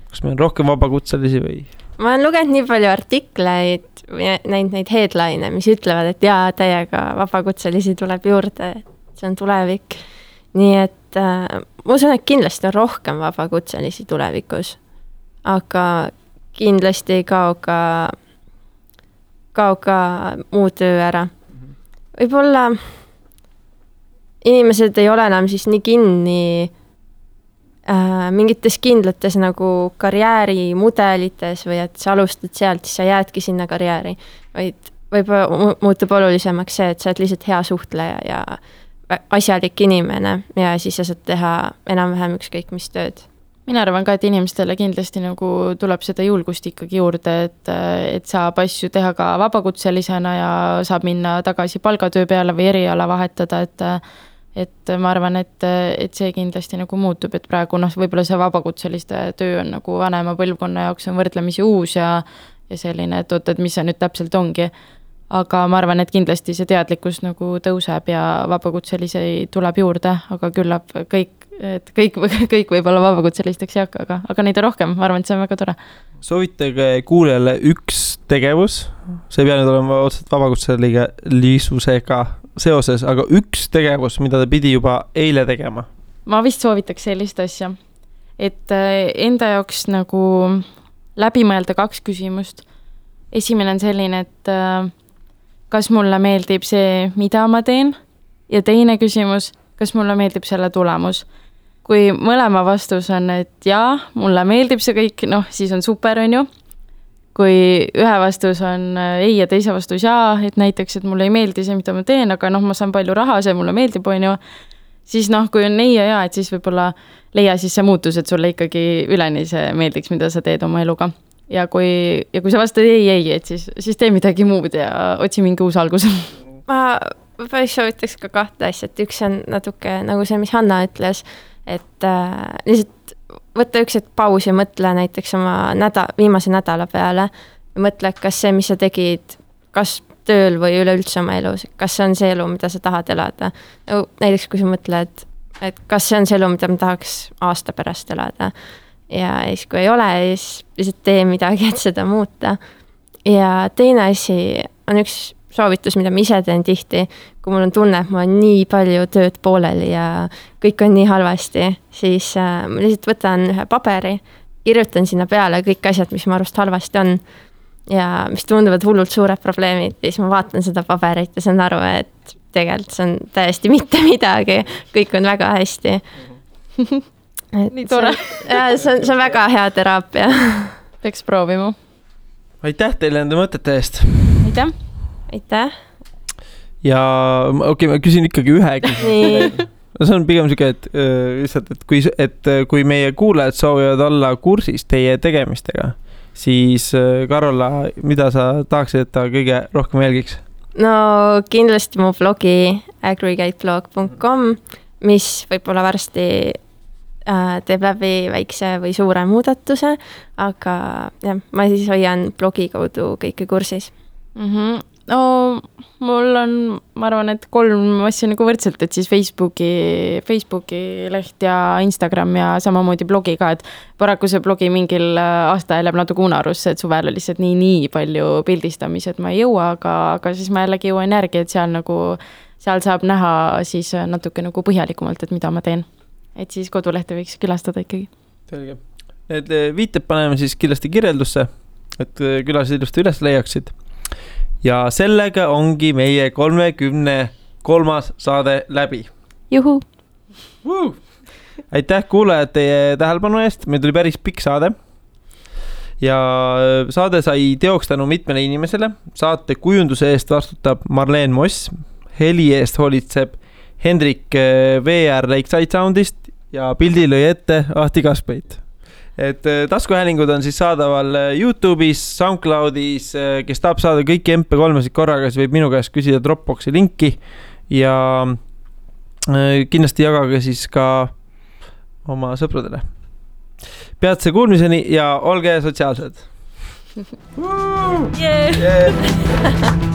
Kas meil on rohkem vabakutselisi või? Ma olen lugenud nii palju artikleid, näinud neid headline, mis ütlevad, et jaa, täiega vabakutselisi tuleb juurde, et see on tulevik. Nii et ma usun, et kindlasti on rohkem vabakutselisi tulevikus, aga kindlasti ei kao ka muu töö ära. Võib-olla inimesed ei ole enam siis nii kinni mingites kindlates nagu karjäärimudelites või et sa alustad sealt, siis sa jäädki sinna karjääri, vaid võib-olla muutub olulisemaks see, et sa oled lihtsalt hea suhtleja ja asjalik inimene ja siis sa saad teha enam-vähem ükskõik mis tööd. Mina arvan ka, et inimestele kindlasti nagu tuleb seda julgust ikkagi juurde, et saab asju teha ka vabakutselisena ja saab minna tagasi palgatöö peale või eriala vahetada, et ma arvan, et see kindlasti nagu muutub, et praegu võib-olla see vabakutseliste töö on nagu vanema põlvkonna jaoks on võrdlemisi uus ja selline, et mis see nüüd täpselt ongi. Aga ma arvan, et kindlasti see teadlikkus nagu tõuseb ja vabakutselisi tuleb juurde, aga küllap kõik võib-olla vabakutselisteks ei hakka, aga neid on rohkem, ma arvan, et see on väga tore. Soovitage kuulajale üks tegevus, see ei pea nüüd olema otseselt vabakutselisega seoses, aga üks tegevus, mida ta pidi juba eile tegema. Ma vist soovitaks sellist asja, et enda jaoks nagu läbi mõelda 2 küsimust. Esimene on selline, et kas mulle meeldib see, mida ma teen, ja teine küsimus, kas mulle meeldib selle tulemus. Kui mõlema vastus on, et jaa, mulle meeldib see kõik, siis on super, on ju. kui ühe vastus on ei ja teise vastus jaa, et näiteks, et mulle ei meeldi see, mida ma teen, aga ma saan palju raha, see mulle meeldib, on ju, siis kui on ei ja jaa, et siis võib-olla leia siis see muutus, et sulle ikkagi üleni see meeldiks, mida sa teed oma eluga. Ja kui sa vastad ei, et siis tee midagi muud ja otsi mingi uus algus. Ma päris soovitaks ka kahte asja, et üks on natuke nagu see, mis Hanna ütles, et lihtsalt võtta üks hetk paus ja mõtle näiteks oma viimase nädala peale ja mõtle, kas see, mis sa tegid, kas tööl või üleüldse oma elus, kas see on see elu, mida sa tahad elada. Näiteks kui sa mõtled, et kas see on see elu, mida ma tahaks aasta pärast elada ja siis kui ei ole, siis lihtsalt tee midagi, et seda muuta. Ja teine asi on üks soovitus, mida ma ise teen tihti, kui mul on tunne, et mul on nii palju tööd pooleli ja kõik on nii halvasti, siis ma lihtsalt võtan ühe paberi, kirjutan sinna peale kõik asjad, mis ma arvast halvasti on ja mis tunduvad hullult suured probleemid, siis ma vaatan seda paberit ja saan aru, et tegelikult see on täiesti mitte midagi, kõik on väga hästi. Nii tore. See on väga hea teraapia. Peaks proovima. Aitäh teile enda mõtete eest. Aitäh. Aitäh. Ja okei, ma küsin ikkagi ühe küsimuse. See on pigem siuke, et kui meie kuulajad soovivad olla kursis teie tegemistega, siis Karola, mida sa tahaksid, et ta kõige rohkem jälgiks? No kindlasti mu blogi aggregateblog.com, mis võib-olla varsti teeb läbi väikse või suure muudatuse, aga jah, ma siis hoian blogi kaudu kõike kursis. No, mul on, ma arvan, et 3 asja nagu võrdselt, et siis Facebooki leht ja Instagram ja samamoodi blogi ka, et paraku see blogi mingil aasta jääb natuke unarusse, et suvel on lihtsalt nii palju pildistamis, et ma ei jõua, aga siis ma jällegi jõuan järgi, et seal saab näha siis natuke nagu põhjalikumalt, et mida ma teen. Et siis kodulehte võiks külastada ikkagi. Selge. Need viited paneme siis kindlasti kirjeldusse, et külased ilusti üles leiaksid. Ja sellega ongi meie 33. saade läbi. Juhu! Aitäh kuulajad teie tähelepanu eest, meil tuli päris pikk saade. Ja saade sai teoks tänu mitmele inimesele. Saate kujunduse eest vastutab Marleen Moss, heli eest hoolitseb Hendrik VR Lakeside Soundist ja pildi lõi ette Ahti Kaspeit. Et taskuhäälingud on siis saadaval YouTube'is, SoundCloud'is, kes tahab saada kõik MP3-sid korraga, siis võib minu käest küsida Dropboxi linki ja kindlasti jagage siis ka oma sõpradele. Peatse kuulmiseni ja olge sotsiaalsed. Yeah.